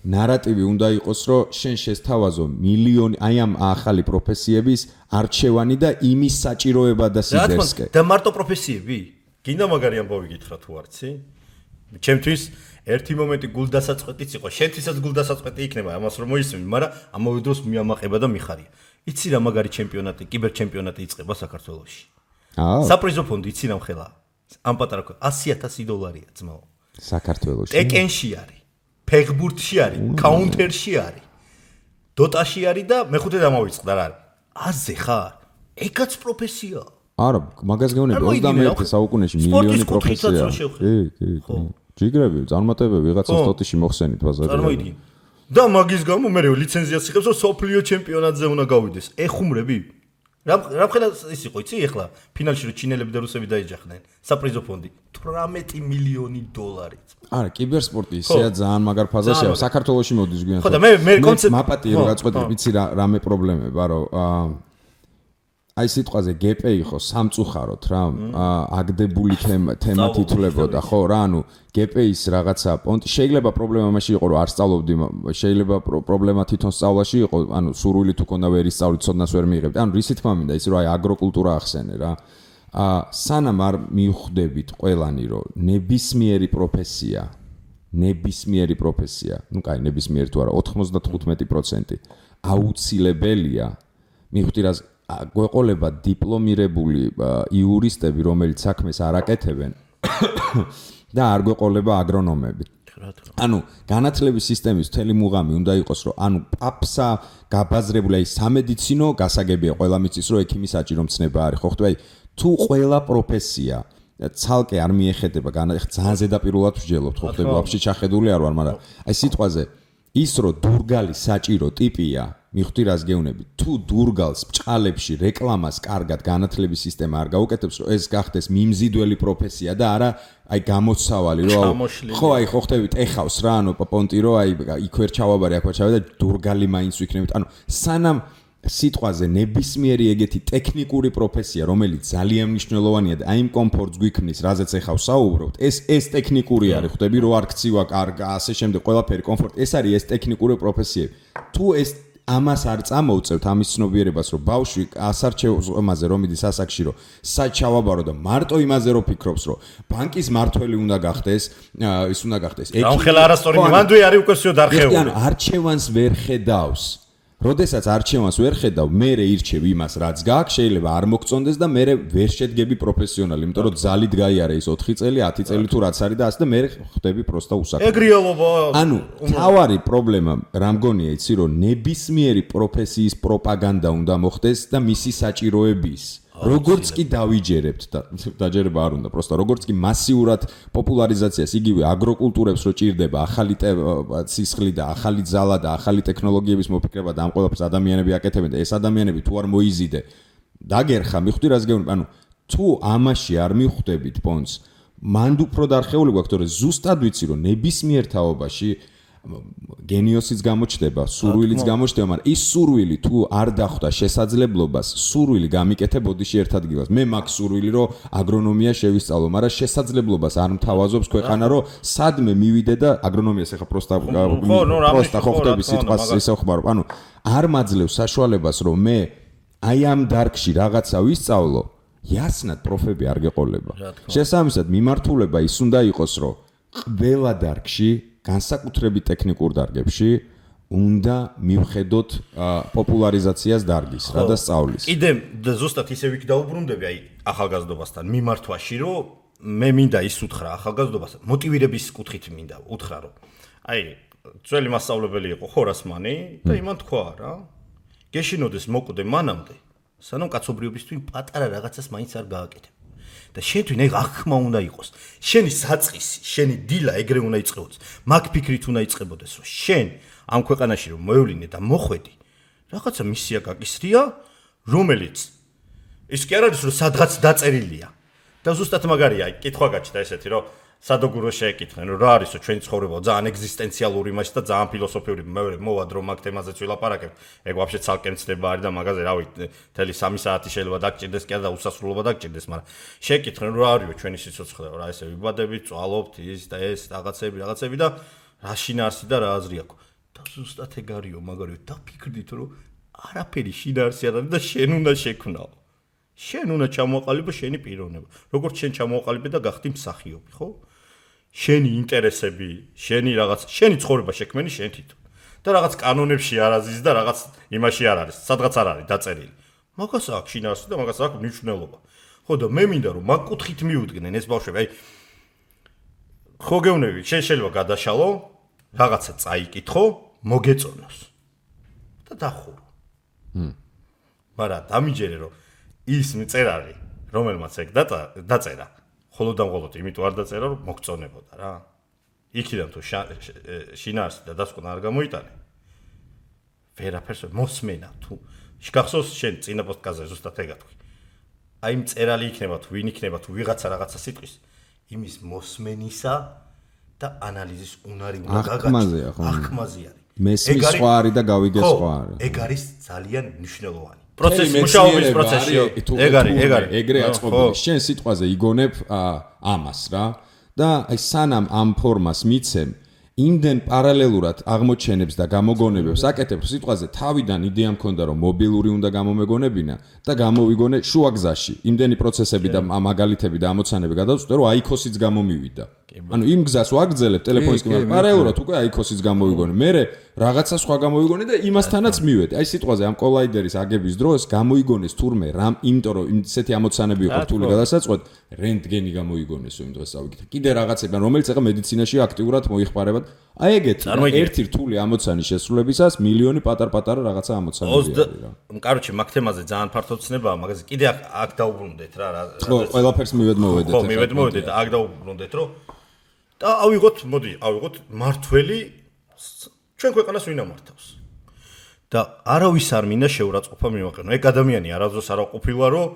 ნარატივი უნდა იყოს, რომ შენ შესთავაზო მილიონი აი ამ ახალი პროფესიების არჩევანი და იმის საჭიროება და სიდერსკე.
და მარტო პროფესიები? გინდა მაგარი ამბავი გითხრა თუ არცი? ჩემთვის ერთი მომენტი გულდასაწყვეტიც იყო, შენთვისაც გულდასაწყვეტი იქნება ამას რომ მოისმენი, მაგრამ ამავე დროს მიამაყება და მიხარია. იცი რა მაგარი ჩემპიონატი, კიბერჩემპიონატი იწყება საქართველოში. საპრიზო ფონდი იცი რა მხელა? ამ პატარა $100,000 ძმაო.
საქართველოში.
ტეკენში არის, ფეხბურთში არის, კაუნტერში არის. დოტაში არის და მეხუთე დამოვიწყდა რა არის. აზე ხარ? ეგაც პროფესიაა.
არა, მაგას გეუბნები 21 საუკუნეში მილიონი პროფესია. კი. ჯიგრები, წარმატებები ვიღაცას ტოტიში მოხსენით ბაზარზე.
წარმოიდგინე. და მაგის გამო მე ლიცენზიას იღებს, რომ სოფლიო ჩემპიონატზე უნდა გავიდეს. ეხუმრები? რა ხელა ის იყო, იცი ეხლა ფინალში რომ ჩინელები და რუსები დაეჯახდნენ. საპრიზო ფონდი $18 მილიონი.
არა, კიბერსპორტი ისეა ძალიან მაგარ ფაზაშია. საქართველოში მოდის გვიან.
ხო და მე კონცეპტი
მაპატი რო გაწყვეტე, ვიცი რამე პრობლემება, რომ აი სიტყვაზე გეპე იყო სამწუხაროდ რა აგდებული თემა თითლებოდა ხო რა ანუ გეპეის რაღაცა პონტი შეიძლება პრობლემა მაშინ იყო რომ არ სწავლობდი შეიძლება პრობლემა თვითონ სწავლაში იყო ანუ სურვილი თუ ქონდა ვერ ისწავლით ცოდნას ვერ მიიღებდი ანუ რისი თქმა მინდა ის რომ აი აგროკულტურა ახსენე რა სანამ არ მიხვდებით ყველანი რომ ნებისმიერი პროფესია ну კაი ნებისმიერი თუ არა 95% აუცილებელია მიხვდი რა გვეყოლება დიპლომირებული იურისტები, რომელიც საქმეს არ აკეთებენ და არ გვეყოლება აგრონომები. ანუ განათლების სისტემის მთელი მუღამი უნდა იყოს, რომ ანუ პაფსა გაბაზრებული აი სამედიცინო გასაგებია ყველა მიწის, რომ ექიმი საჭირო მცნება არის, ხო ხტები? თუ ყველა პროფესია ცალკე არ მიეხედება, ძალიან ზედაპირულად ვსჯელობთ, ხო ხტები? ვაფშე ჩახედული არ ვარ, მაგრამ აი სიტყვაზე ის რომ დურგალი საჭირო ტიპია მიხვდი რას გეუნები თუ დურგალს ბჭყალებში რეკლამას კარგად განათლების სისტემა არ გაუკეთებს რომ ეს გახდეს მიმზიდველი პროფესია და არა აი გამოცავალი რომ ხო აი ხო ხტებით ეხავს რა ანუ პონტი რომ აი იქ ვერ ჩავაბარე აქ ვერ ჩავე და დურგალი მაინც ვიქნებით ანუ სანამ სიტყვაზე ნებისმიერი ეგეთი ტექნიკური პროფესია რომელიც ძალიან მნიშვნელოვანია და აი იმ კომფორტს გვიქმნის რაზეც ეხავს საუბრობთ ეს ტექნიკური არის ხტები რომ არ ქცივა კარგა ასე შემდეგ ყველაფერი კომფორტი ეს არის ეს ტექნიკური პროფესიები თუ ეს ამას არ წამოვწევთ ამის ცნობიერებას რომ ბავშვი ასარჩევაზე რომ მიდის ასაკში რომ საჩავაბარო და მარტო იმაზე რომ ფიქრობს რომ ბანკის მართველი უნდა გახდეს ის უნდა გახდეს
რა ხელა არასწორი მანდვი არის უკვე всё დარხეული
ანუ არჩევანს ვერ ხედავს როდესაც არჩევანს ვერ ხედავ მე ირჩევ იმას რაც გაქვს შეიძლება არ მოგწონდეს და მე ვერ შედგები პროფესიონალი იმიტომ რომ ძალით გაიარე ის 4 წელი 10 წელი თუ რაც არის და ასე და მე ხდები პროსტა უსაქმო
ეგ რეალობა
ანუ თავარი პრობლემა რა მგონია იცი რომ ნებისმიერი პროფესიის პროპაგანდა უნდა მოხდეს და მისი საჭიროების როგორც კი დავიჯერებთ და დაჯერება არ უნდა პროსტა როგორც კი მასიურად პოპულარიზაციას იგივე აგროკულტურებს რო ჭირდება ახალი სისხლი და ახალი ძალა და ახალი ტექნოლოგიების მოფიქრება და ამ ყველაფერს ადამიანები აკეთებენ და ეს ადამიანები თუ არ მოიზიდე დაგერხა მიხვდი რას გეუბნები ანუ თუ ამაში არ მიხვდებით პონს მანდ უფრო დარხეული გვაქვს თორე ზუსტად ვიცი რომ ნებისმიერ თაობაში გენიოსიც გამოჩდება, სურვილიც გამოჩდება, მაგრამ ის სურვილი თუ არ დახვდა შესაძლებლობას, სურვილი გამიკეთებოდიში ერთ ადგილას. მე მაქვს სურვილი, რომ აგრონომია შევისწავლო, მაგრამ შესაძლებლობას არ მთავაზობს ქვეყანა, რომ სადმე მივიდე და აგრონომიას ეხა პროსტა ხო ხდები სიტყვას ისე ხმარო. ანუ არ მაძლევს საშუალებას, რომ მე აი ამ დარგში რაღაცა ვისწავლო, იასნად პროფები არ გეყოლება. შესაბამისად, მიმართულება ის უნდა იყოს, რომ ყველა დარგში განსაკუთრებით ტექნიკურ დარგებში უნდა მივხედოთ პოპულარიზაციას დარგის რა და სწავლის.
კიდე ზუსტად ისე ვიქ დაუბრუნდები აი ახალგაზრდობასთან მიმართვაში რომ მე მინდა ის უთხრა ახალგაზრდობასთან მოტივირების კუთხით მინდა უთხრა რომ აი ძველი მასწავლებელი იყო ხორასმანი და იმან თქვა რა გეშინოდეს მოკვდე მანამდე სანამ კაცობრიობისთვის პატარა რაღაცას მაინც არ გააკეთებ. და შენთვის ეგ აღქმა უნდა იყოს. შენი საწყისი, შენი დილა ეგრე უნდა იწყებოდეს. მაგ ფიქრით უნდა იწყებოდეს, რომ შენ ამ ქვეყანაში რომ მოევლინე და მოხვედი, რაღაცა მისია გაკისრია, რომელიც ის კი არ არის რომ სადღაც დაწერილია. და ზუსტად მაგარია, კითხვა გაჩნდა ესეთი, რომ სადოგურო შეეკითხნენ, რომ რა არისო ჩვენი ცხოვრება ძალიან ეგზისტენციალური მასში და ძალიან ფილოსოფიური. მე მოვად რომ მაგ თემაზეც ვილაპარაკებ. ეგ ვაფშე ცალკე მცდება არის და მაგაზე რავი, მთელი 3 საათი შეიძლება დაგჭირდეს კი არა და უსასრულობა დაგჭირდეს, მაგრამ შეეკითხნენ, რომ რა არისო ჩვენი სიცოცხლე, რა ესე ვიბადებით, წვალობთ, ის და ეს რაღაცები და რა შინაარსი და რა აზრი აქვს. და ზუსტად ეგ არისო, მაგარიო, დაფიქრდით, რომ არაფერი შინაარსი არ არის და შენ უნდა შექმნაო. შენ უნდა ჩამოაყალიბო შენი პიროვნება. როგორც შენ ჩამოაყალიბე და გახდი მსახიობი, ხო? შენი ინტერესები, შენი ცხოვრება შექმენი შენ თვითონ. და რაღაც კანონებში არ აზის და რაღაც იმაში არ არის, სადღაც არ არის დაწერილი. მაგას აქვს შინაარსი და მაგას აქვს მნიშვნელობა. ხო და მე მინდა რომ მაგ კუთხით მიუდგნენ ეს ბავშვები, აი ხო გეუბნები, შენ შეიძლება გადაშალო, რაღაცა წაიკითხო, მოგეწონოს და დახურო. მაგრამ დამიჯერე რომ ის მწერალი, რომელმაც ეგ დაწერა, მხოლოდ იმიტომ არ დაწერა, რომ მოგწონებოდა რა. იქიდან თუ შინაარსი და დასკვნა არ გამოიტანე. ვერაფერს მოსმენა თუ შეგახსოვს შენ წინა პოდკასტზე ზუსტად ეგ თქვი. აი მწერალი იქნება თუ ვინ იქნება თუ ვიღაცა რაღაცა სიტყვის იმის მოსმენისა და ანალიზის უნარი უნდა
გაგაჩნდეს.
ახმაზე არის.
მესმის სხვა არის და გავიგე სხვა არის.
ეგ არის ძალიან მნიშვნელოვანი. პროცესი მუშაობის პროცესია. ეგ არის.
ეგრე აწყობილი. შენ სიტყვაზე იგონებ ამას რა და აი სანამ ამ ფორმას მიცემ იმდენ პარალელურად აღმოჩენებს და გამოგონებებს აკეთებ სიტყვაზე თავიდან იდეა მქონდა რომ მობილური უნდა გამომეგონებინა და გამოვიგონე შუა გზაში იმდენი პროცესები და მაგალითები და ამოცანები გადავწყვეტე რომ აიქოსიც გამომივიდა ანუ იმ გზას ვაგრძელებ ტელეფონის კამერით პარალელურად უკვე აიქოსიც გამოვიგონე მე რაღაცა სხვა გამოვიგონე და იმასთანაც მივედი აი სიტყვაზე ამ კოლაიდერის აგების დროს გამოიგონეს თურმე რამ იმიტომ რომ ისეთი ამოცანები იყო რთული გადასაწყვეტ რენტგენი გამოიგონესო იმ დღეს ავიგეთ კიდე რაღაცებთან რომელიც ახლა მედიცინაში აქტიურად მოიხმარება აი ეგეთ ერთი რთული ამოცანის შესრულებისას მილიონი პატარ-პატარა რაღაცა ამოცანები არის რა.
კაროჩე მაგ თემაზე ძალიან ფართო ცნებაა, მაგაზე კიდე აქ დაუბრუნდეთ რა.
ხო, ყველაფერს მივედმოვედეთ.
ხო, მივედმოვედეთ, აქ დაუბრუნდეთ, რომ და ავიღოთ მართველი ჩვენ ქვეყანას ვინ ამართავს. და არავის არ მინდა შეურაცხყოფა მივაყენო. ეგ ადამიანი არასდროს არ ყოფილა, რომ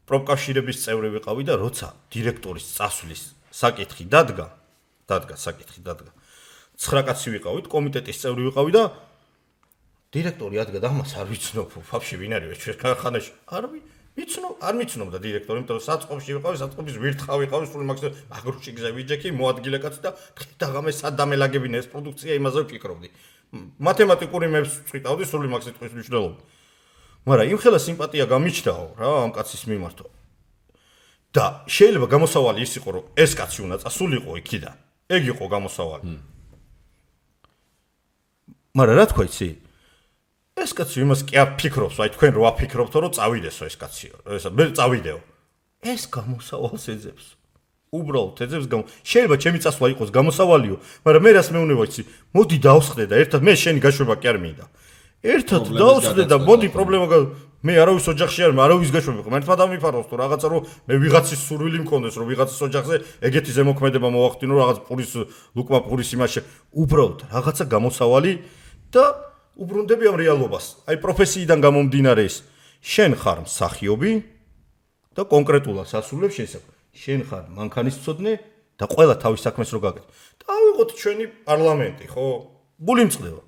პროფკავშირების წევრი ვიყავი და როცა დირექტორის წასვლის საკითხი დადგა 9 კაცი ვიყავით, კომიტეტის წევრი ვიყავი და დირექტორი ადგა და ამას არ ვიცნობ, ფაფში ვინ არის ჩვენ ქარხანაში. არ მიცნობდა დირექტორი, იმიტომ რომ საწყობში ვიყავი, საწყობის ვირთხა ვიყავი, სულ მაგრუჩი გზა ვიჯექი, მოადგილე კაცი და დღე-დაღამე სადამელაგებინა ეს პროდუქცია, იმაზე ვფიქრობდი. მათემატიკური მეებს ვწვიტავდი, სულ მაგ სიტყვის მნიშვნელობა. მაგრამ იმ ხელა სიმპათია გამიჩნდაო რა ამ კაცის მიმართ. და შეიძლება გამოსავალი ის იყო, რომ ეს კაცი უნდა წასულიყო იქიდან. ეგ იყო გამოსავალი. მაგრამ რა თქვა იცი? ეს კაცი იმას კი არ ფიქრობს, აი თქვენ რო აფიქრობთო, რომ წავიდესო ეს კაციო. მე წავიდეო. ეს გამოსავალს ეძებს. უბრალოდ ეძებს შეიძლება ჩემი წასვლა იყოს გამოსავალიო, მაგრამ მე რას მეუნება იცი? მოდი დავსხდე და ერთად მე შენი გაშვება კი არ მინდა. ერთად დავსხდე და მოდი პრობლემა მე არავის ოჯახში არ არავის გაშვება ხო მართლა დამიფაროს თუ რაღაცა რომ მე ვიღაცის სურვილი მქონდეს რომ ვიღაცის ოჯახზე ეგეთი ზემოქმედება მოვახდინო რაღაც პურის ლუკმა პურის იმაში უბრალოდ რაღაცა გამოსავალი და უბრუნდები ამ რეალობას აი პროფესიიდან გამომდინარე ის შენ ხარ მსახიობი და კონკრეტულად სასულებ შენ ხარ მანქანისმცოდნე და ყველა თავის საქმეს რო გაკეთე და ავიღოთ ჩვენი პარლამენტი ხო გულიმწყდება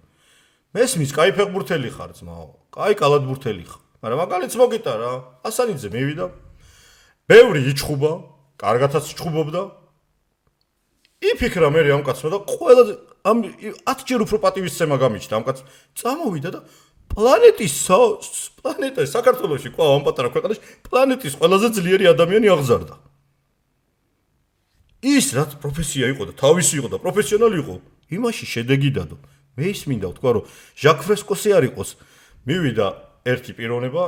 მესმის კაი ფეხბურთელი ხარ ძმაო კაი კალათბურთელი ხარ მაგრამ მაგალითს მოგიტა რა ასანიძე მივიდა ბევრი იჩხუბა კარგათაც იჩხუბობდა იფიქრა მე ამ კაცმა და ყველა ამ 10 ჯერ უფრო პატივისცემა გამიჩნდა ამ კაცს წამოვიდა და პლანეტის საქართველოში ყო ამ პატარა ქვეყანაში პლანეტის ყველაზე ძლიერი ადამიანი აღზარდა ის რაც პროფესია იყო და თავისი იყო და პროფესიონალი იყო იმაში შედეგი დადო მე ის მინდა ვთქვა რომ ჟაკ ფრესკოსი არ იყოს მივიდა ერთი პიროვნება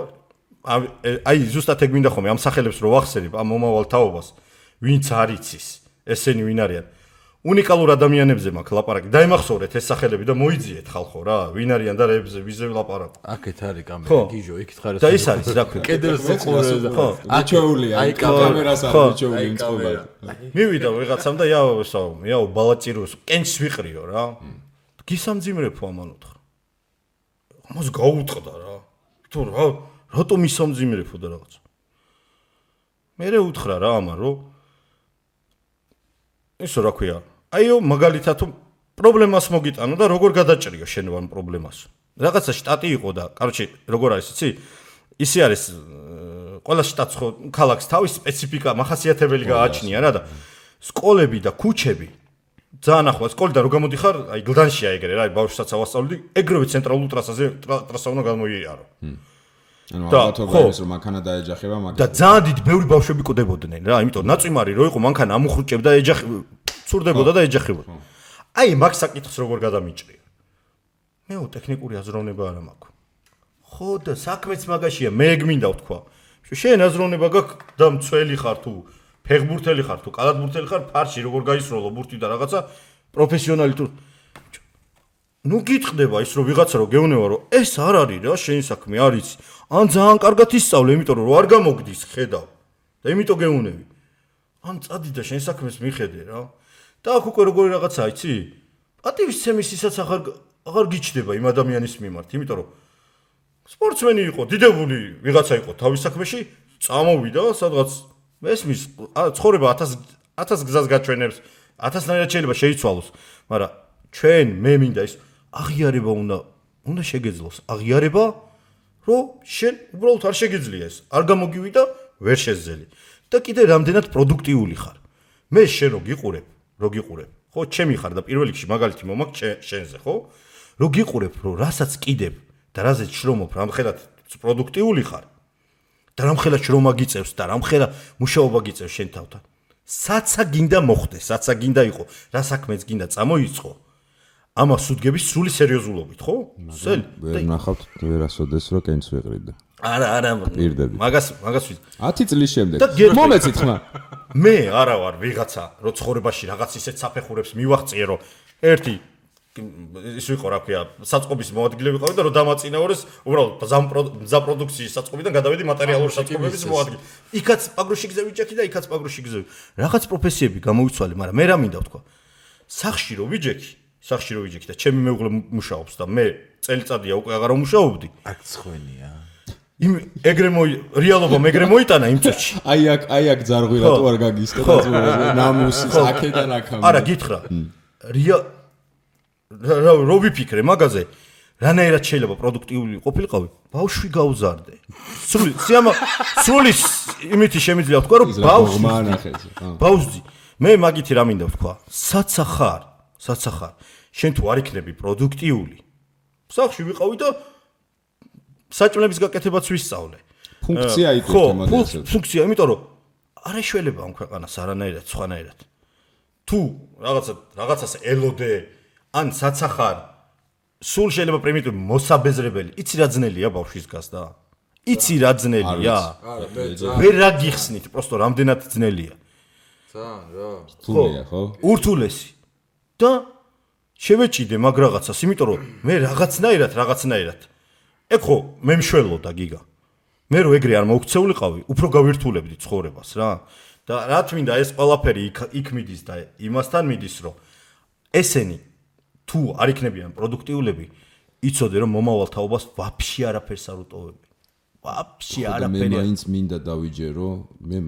აი ზუსტად ეგ მინდა ხოლმე ამ სახელებს რო ვახსენებ ამ მომავალ თაობას ვინც არ იცის ესენი ვინ არიან უნიკალურ ადამიანებზე მაქვს ლაპარაკი დაიმახსოვრეთ ეს სახელები და მოიძიეთ ხალხო რა ვინ არიან და რეებზე ვიზე ვლაპარაკ
აქეთ არის კამერა გიჟო იქით ხარ
და ის არის რა ქვია
კედელზე ყურე
ხო აჩოულია აი კამერას არის აჩოული იმ წყობა
მივიდა ვიღაცამ და იაო ბალაჭიროს კენჩს ვიყრიო რა გისამძიმრებო ამან უთხრა ამას გაუტყდა რა თუ რატომ ისამძიმრებო და რაღაც მე უთხრა რა ამან რომ ისო რა ქვია აიო მაგალითად პრობლემას მოგიტანო და როგორ გადაჭრიო შენ ამ პრობლემას რაღაცა შტატი იყო და კაროჩე როგორ არის იცი ისე არის ყველა შტატს ხო ქალაქს თავის სპეციფიკა მახასიათებელი გააჩნია რა და სკოლები და ქუჩები ძალიან ახლო სკოლიდან რო გამოდიხარ, აი გლდანშია ეგრე რა, აი ბავშვსაც ავასწავლდი, ეგრევე ცენტრალურ ტრასა უნდა გამოიარო.
ანუ ალბათობა ის რომ მანქანა დაეჯახება,
მაგრამ და ძალიან დიდი ბევრი ბავშვები ყდებოდნენ რა, იმიტომ ნაწვიმარი რო იყო მანქანა ამუხრუჭებდა, ცურდებოდა და ეჯახებოდა. აი მაგ საკითხს როგორ გადამიჭრია. მეო ტექნიკური აზროვნება არ მაქვს. ხო და საქმეც მაგაშია, მე გმინდა ვთქვა. შენ აზროვნება გაქვს და მცველი ხარ თუ ფეხბურთელი ხარ თუ კალათბურთელი ხარ, ფარში როგორ გაისროლო ბურთი და რაღაცა პროფესიონალი თუ ნუ გიტყდება ის რომ ვიღაცა რო გეუნება რომ ეს არ არის რა შენი საქმე არის ან ძალიან კარგად ისწავლე იმიტომ რომ არ გამოგდის ხედავ და იმიტომ გეუნები ან წადი და შენ საქმეს მიხედე რა და აქ უკვე როგორი რაღაცა იცი პატივისცემისისაც აღარ გიჩდება იმ ადამიანის მიმართ იმიტომ რომ სპორტსმენი იყო დიდებული ვიღაცა იყო თავის საქმეში წამოვიდა სადღაც მესმის ცხოვრება 1000 გზას გაჩვენებს 1000-ნაირად შეიძლება შეიცვალოს მაგრამ ჩვენ მე მინდა ის აღიარება უნდა შეგეძლოს აღიარება რომ შენ უბრალოდ არ შეგიძლია ეს არ გამოგივიდა ვერ შეძელი და კიდე რამდენად პროდუქტიული ხარ მე შენ რო გიყურებ ხო ჩემი ხარ და პირველ რიგში მაგალითი მომაქვს შენზე ხო რო გიყურებ რომ რასაც კიდებ და რაზეც შრომობ რამხელად პროდუქტიული ხარ და რამხელა შრომა გიწევს და რამხელა მუშაობა გიწევს შენ თავთან. საცა გინდა მოხდეს, საცა გინდა იყო, რა საქმეც გინდა წამოიწყო. ამას უდგების სრული სერიოზულობით, ხო? სელი.
ვერ ნახავთ ვერასოდეს რო კენს ვეყრიდა.
არა. მაგას
10 წლის შემდეგ. მომეცით ხმა.
მე არა ვარ ვიღაცა, რო ცხოვრებაში რაღაც ისეთ საფეხურებს მივაღწიე, რომ ერთი ის ვიყო რა ქვია საწყობის მოადგილე ვიყავი და რომ დამაწინაურეს უბრალოდ მზა პროდუქციის საწყობიდან გადავედი მატერიალური საწყობების მოადგილე. იქაც პაგროში გზები ვიჯექი და იქაც პაგროში გზები. რაღაც პროფესიები გამოვიცვალე, მაგრამ მე რა მინდა ვთქვა. სახში რო ვიჯექი და ჩემი მეუღლე მუშაობს და მე წელიწადია უკვე აღარ ვმუშაობდი.
აქ ცხენია.
რეალობა მეგრე მოიტანა იმ წუთში.
აი აქ ძარღვირატო არ გაგისკდა ნამუსის აქედან აქამდე.
არა გითხრა. რო ვიფიქრე მაგაზე რანაირად შეიძლება პროდუქტიული ყოფილიყავი ბავშვი გავზარდე სრული იმითი შემიძლია ვთქვა რომ ბავშვი მე მაგითი რა მინდა ვთქვა საცა ხარ შენ თუ არ იქნები პროდუქტიული სახში ვიყავი და საჭმლების გაკეთებაც ვისწავლე
ფუნქცია იყო მაგაზე
ფუნქცია იმიტომ რომ არ ეშველება ამ ქვეყანას არანაირად სხვანაირად თუ რაღაცას ელოდე ან საცახარ სულ შეიძლება პრიმიტივი მოსაბეზრებელი იცი რა ძნელია ბავშვის გასდა იცი რა ძნელია ვერ რა გიხსნით პროსტო რამდენად ძნელია
ძალიან რა
რთულია ხო
ურთულესი და შევეჭიდე მაგ რაღაცას იმიტომ რომ მე რაღაცნაირად ეგ ხო მე მშველოდა გიგა მე რო ეგრე არ მოუქცეულიყავი უფრო გავირთულებდი ცხოვრებას რა და რა თქმა ეს ყველაფერი იქ მიდის და იმასთან მიდის რომ ესენი თუ არ იქნებიან პროდუქტიულები, იცოდე რომ მომავალ თაობას ვაფშე არაფერს არ უტოვებენ. ვაფშე არაფერი.
მე მაინც მინდა დავიჯერო, მე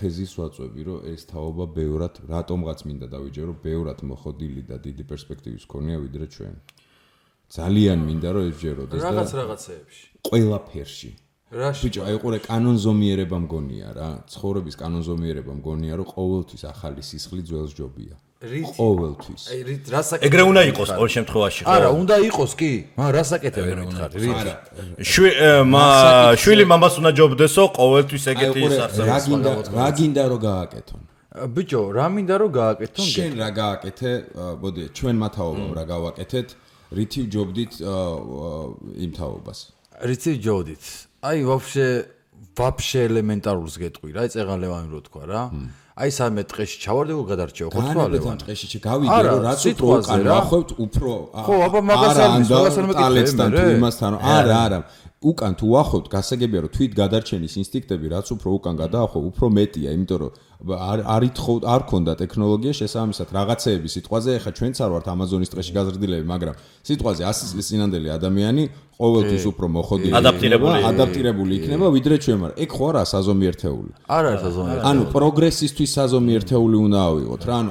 თეზის ვაწვევი, რომ ეს თაობა ბევრად, რატომღაც მინდა დავიჯერო, ბევრად მოხდილი და დიდი პერსპექტივის ქონია ვიდრე ჩვენ. ძალიან მინდა რომ ეჯეროდეს და
რაღაცეებში.
ყველაფერში. ბიჭო, აი ყურე კანონზომიერება მგონია რა, ცხოვრების კანონზომიერება მგონია, რომ ყოველთვის ახალი სისხლი ძველს ჯობია. ყოველთვის.
აი რასაკეთებ?
ეგრე უნდა იყოს ყოველ შემთხვევაში, ხო?
არა, უნდა იყოს კი. მაგრამ რასაკეთებ ვერ მითხარ?
შვილი მამას უნდა ჯობდესო, ყოველთვის ეგეთი ის არსებობს.
რა გინდა რომ გააკეთონ?
ბიჭო, რა მინდა რომ გააკეთონ?
შენ რა გააკეთე? მოდი, ჩვენ მათაობამ რა გავაკეთეთ? რითი ჯობდით იმ თაობას?
რითი ჯობდით? აი ვაფშე ელემენტარულს გეტყვი რა, წეღალევანი რო თქვა რა. აი სამე ტყეში ჩავარდებო გადარჩეო ხო თქვა ლევან
ტყეში გავიგე რომ რაც უფრო უკან ვახევთ უფრო
ხო აბა მაგას არ
მეკითხებიან თუ იმასთან არა უკან თუ ვახევთ გასაგებია რომ თვით გადარჩენის ინსტინქტები რაც უფრო უკან გადაახვევ უფრო მეტია იმიტომ რომ არ ქონდა ტექნოლოგია შესაბამისად რაღაცეები სიტყვაზე ეხა ჩვენც არ ვართ ამაზონის ტყეში გაზრდილები მაგრამ სიტყვაზე 100 წლის წინანდელი ადამიანი ყოველთვის უფრო მოხდილი ადაპტირებული იქნება ვიდრე ჩვენ მაგრამ ეგ ხო არა საზომი ერთეული
არ არის საზომი
ანუ პროგრესისთვის საზომი ერთეული უნდა ავიღოთ რა ანუ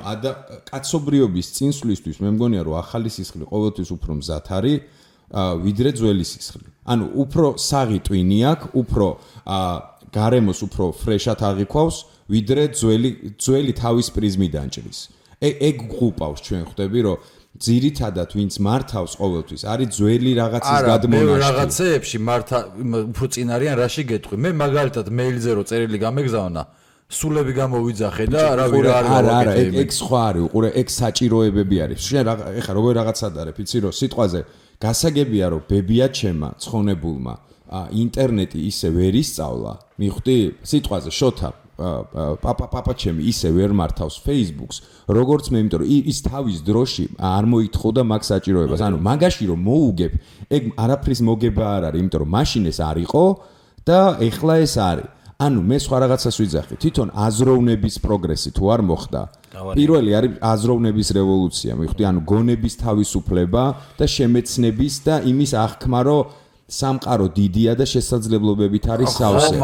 კაცობრიობის წინსვლისთვის მე მგონია რომ ახალი სისხლი ყოველთვის უფრო მზად არის ვიდრე ძველი სისხლი ანუ უფრო საღი ტვინი აქვს უფრო გარემოს უფრო ფრეშად აღიქვავს ვიდრე ძველი თავის პრიზმიდან ჭრის ეგ გყუპავს ჩვენ ხვდები რომ ძირითადად ვინც მართავს ყოველთვის არის ძველი რაღაცის გადმონაშთი.
არა, რაღაცეებში მართა უფრო წინ არიან რაში გეტყვი. მე მაგალითად მეილზე რო წერილი გამეგზავნა, სულები გამოვიძახე და რავი რა
არა, ეგ სხვა არის, უყურე, ეგ საჭიროებები არის. შენ ეხა როგორ რაღაცად არის, იცი რომ სიტყვაზე გასაგებია რომ ბებია ჩემა, ცხონებულმა, ინტერნეტი ისე ვერ ისწავლა, მიხვდი? სიტყვაზე შოთა პაპა ჩემი ისე ვერ მართავს Facebook-ს, როგორც მე, იმიტომ რომ ის თავის დროში არ მოითხოვდა მაგ საჭიროებას. ანუ მაგაში რომ მოუგებ, ეგ არაფრის მოგება არ არის, იმიტომ რომ მაშინ ეს არ იყო და ეხლა ეს არის. ანუ მე სხვა რაღაცას ვიძახი. თვითონ აზროვნების პროგრესი თუ არ მოხდა, პირველი არის აზროვნების რევოლუცია, მიხვდი? ანუ გონების თავისუფლება და შემეცნების და იმის აღქმა, რომ სამყარო დიდია და შესაძლებლობებით არის სავსე.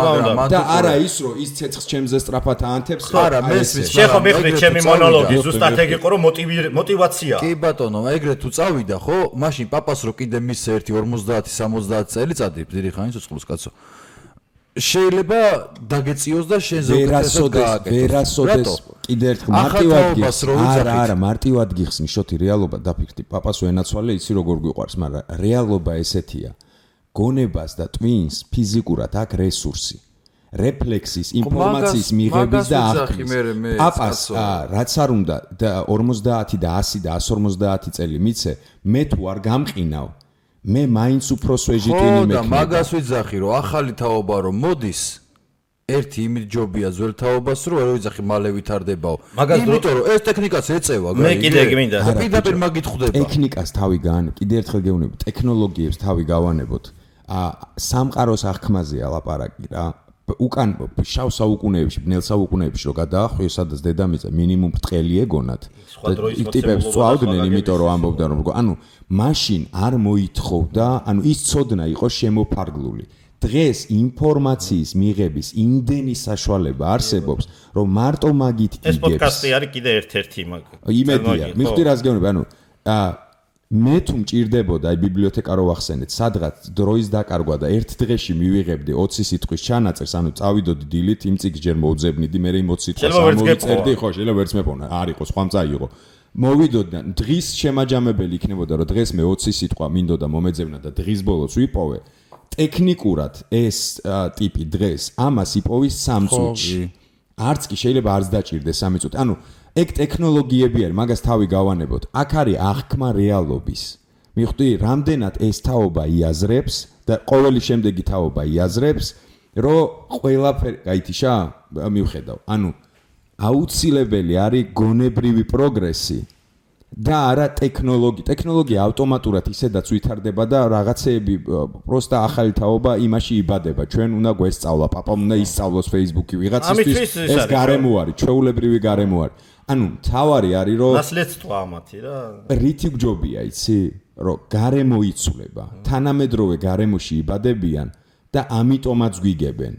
და არა ის რომ ის ცეცხლს ჩემზე სწრაფად აანთებს,
არა, მესმის.
შეხო მიხდი ჩემი მონოლოგი, ზუსტად ეგ იყო რომ мотиваციაა.
კი ბატონო, ეგრე თუ წავიდა, ხო? მაშინ პაპას რო კიდე მისცე 50-60 წელიწადი, დიდი ხანი ცოცხლოს კაცო. შეიძლება დაგეციოს და შენ ზოგადად
ვერასოდეს კიდე ერთხელ მარტივად გიხსნი. არა, მარტივად გიხსნი, შოთი რეალობა დაფიქრდი. პაპას ვენაცვალე, იცი როგორ გვიყვარს, მაგრამ რეალობა ესეთია. გონებას და ტვინს ფიზიკურად აქვს რესურსი. რეფლექსის, ინფორმაციის მიღების და აღქმის. პაპას რაც არ უნდა 50 და 100 და 150 წელი მიცე, მე თუ არ გამყინავ, მე მაინც უფრო სვეჟიტინი მექნება.
და მაგას ვიძახი რომ ახალი თაობა რომ მოდის, ერთი იმით ჯობია ძველ თაობას რომ არ ვიძახი მალე ვითარდებაო. იმიტომ რომ ეს ტექნიკაც ეწევა,
მე კიდე გმინდა.
პირდაპირ მაგით ხვდება.
ტექნიკას თავი გაან, კიდე ერთხელ გეუბნები, ტექნოლოგიებს თავი გავანებოთ. სამყაროს აღქმაზეა ლაპარაკი რა. უკან შავ საუკუნეებში, ბნელ საუკუნეებში რო გადაახვიეს, სადაც დედამიწა მინიმუმ ბრტყელი ეგონათ. ტიპებს წვავდნენ, იმიტომ რომ ამბობდნენ რომ ანუ მაშინ არ მოითხოვდა, ანუ ის ცოდნა იყო შემოფარგლული. დღეს ინფორმაციის მიღების იმდენი საშუალება არსებობს, რომ მარტო მაგით იგებს.
ეს პოდკასტი არის კიდე ერთ-ერთი მაგ.
იმედია, მიხდი რას გეუბნები, ანუ მე თუ მჭირდებოდა აი ბიბლიოთეკა რო ვახსენეთ, სადღაც დროის დაკარგვა და ერთ დღეში მივიღებდი 20 სიტყვის ჩანაწერს, ანუ წავიდოდი დილით, იმ წიგს ჯერ მოვძებნიდი, მე იმ 20 სიტყვას ამოვიწერდი, ხო, შეიძლება ვერც მეპოვნა, არ იყო, სხვა მწაიღო. მოვიდოდი და დღის შემაჯამებელი იქნებოდა, რომ დღეს მე 20 სიტყვა მინდოდა მომეძებნა და დღის ბოლოს ვიპოვე. ტექნიკურად ეს ტიპი დღეს ამას იპოვის 3 წუთში. არც კი შეიძლება არც დაჭირდეს 3 წუთი. ანუ ეგ ტექნოლოგიები არის, მაგას თავი გავანებოთ. აქ არის აღქმა რეალობის. მიხვდი, რამდენად ეს თაობა იაზრებს და ყოველი შემდეგი თაობა იაზრებს, რომ ყველაფერი, გაითიშა, მივხედავ. ანუ აუცილებელი არის გონებრივი პროგრესი და არა ტექნოლოგია. ტექნოლოგია ავტომატურად ისედაც ვითარდება და რაღაცეები პროსტა ახალი თაობა იმაში იბადება. ჩვენ უნდა გვესწავლა, პაპამ უნდა ისწავლოს Facebook-ი ვიღაცისთვის, ეს გარემო არის, ჩვეულებრივი გარემო არის. ანუ თავარი არის რომ
ნასლეთსტვა ამათი რა.
რითი გჯობია, იცი? რომ გარემო იცვლება, თანამედროვე გარემოში იბადებიან და ამიტომაც გვიგებენ.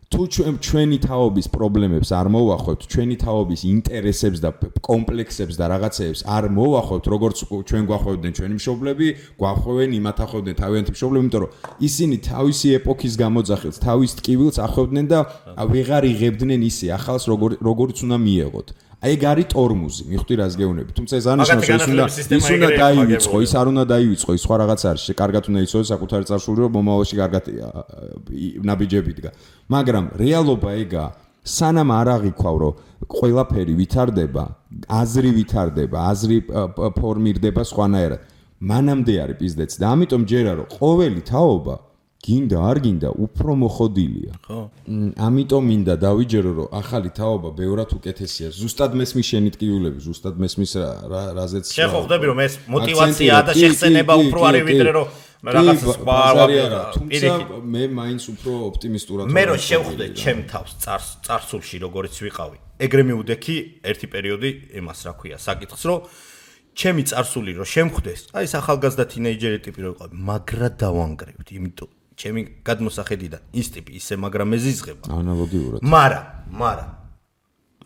თუ ჩვენი თაობის პრობლემებს არ მოვახვევთ, ჩვენი თაობის ინტერესებს და კომპლექსებს და რაღაცეებს არ მოვახვევთ, როგორც ჩვენ გვახვევდნენ ჩვენი მშობლები, გვახვევენ იმათ ახვევდნენ თავიანთი მშობლები, იმიტომ რომ ისინი თავისი ეპოქის გამოძახილს, თავის ტკივილს ახვევდნენ და ვეღარ იღებდნენ ისე ახალს, როგორც უნდა მიეღოთ. ეგ არის ტორმუზი, მიხვდი რას გეუბნები. თუმცა ეს ანიშნავს, ის უნდა დაივიწყო, ის არ უნდა დაივიწყო, ის სხვა რაღაც არის, კარგად უნდა იცოდე საკუთარი წარსული, რომ მომავალში კარგად ნაბიჯები დგა. მაგრამ რეალობა ეგა, სანამ არ აღიქვავ, რომ ყველაფერი ვითარდება, აზრი ვითარდება, აზრი ფორმირდება სხვანაირად. მანამდე არის პიზდეც და ამიტომ ჯერა რომ ყოველი თაობა გინდა არ გინდა უფრო მოხოდილია. ხო. ამიტომ მინდა დავიჯერო რომ ახალი თაობა ბევრად უკეთესია. ზუსტად მესმის შენი ტკივილები, ზუსტად მესმის რაზეც.
შეხო ხვდები რომ ეს мотиваციაა და შეხსენება უფრო არის ვიდრე რომ რაღაც სხვა
არა. თუმცა მე მაინც უფრო ოპტიმისტურად
მე რო შევხვდე ჩემ თავს წარსულში როგორიც ვიყავი. ეგრე მივდექი ერთი პერიოდი იმას რა ქვია, საკითხს რომ ჩემი წარსული რო შემხვდეს, აი ეს ახალგაზრდა თინეიჯერი ტიპი რო ვიყავი, მაგრა დავანგრევდი, იმიტომ ჩემი გადმოსახედიდან ის ტიპი ისე მაგრამ ეზიზღება.
ანალოგიურად.
მაგრამ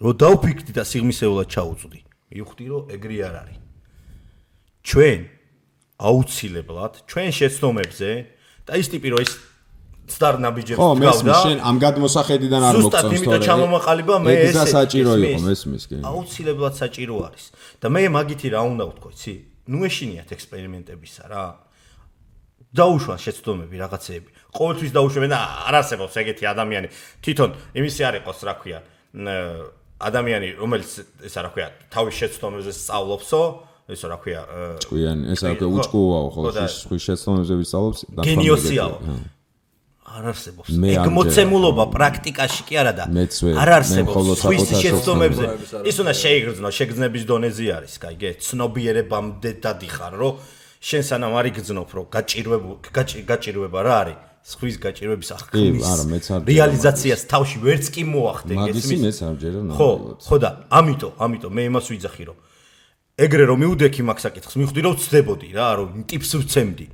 რო დავფიქრდი და სიღმისეულად ჩაუწვდი, მივხვდი რომ ეგრე არ არის. ჩვენ აუცილებლად ჩვენ შეცდომებზე და ის ტიპი რო ის ცდარნაბიჯებს
ხო,
დგავდა.
მესმის შენ ამ გადმოსახედიდან არ მოგწონს თორე.
ზუსტად იმიტომ ჩამომაყალიბა მე
ეს საჭირო იყო მესმის კი.
აუცილებლად საჭირო არის. და მე მაგითი რა უნდა ვთქვა, იცი? ნუ ეშინიათ ექსპერიმენტებისა რა. დაუშვან შეცდომები რაღაცეები. ყოველთვის დაუშვენ და არ არსებობს ეგეთი ადამიანი. თვითონ იმისი არ იყოს, რა ქვია, ადამიანი, რომელიც ესა რა ქვია, თავის შეცდომებზე სწავლობსო, ესა რა ქვია,
ჭკვიანი, ესა უჭკუაო ხო, ხვის შეცდომებზე ვისწავლობს და
გენიოსიაო. არ არსებობს. ეგ მოცემულობა პრაქტიკაში კი არა და არ არსებობს. ხვის შეცდომებზე ის უნდა შეიგრძნო, შეგრძნების დონეზე არის, კაიგე, ცნობიერებამდე დადიხარ, რომ შენ სანამ არ იგრძნობ, რომ გაჭირვება რა არის? ხვის გაჭირვების ახკმის რეალიზაციას თავში ვერც კი მოახდე,
გესმის? მეც არ ჯერა
ნამდვილად. ხო და ამიტომ მე იმას ვიძახი, რომ ეგრე რომ მიუდექი მაგ საკითხს, მივხვდი რომ ვწდებოდი რა, რომ ტიპს ვცემდი.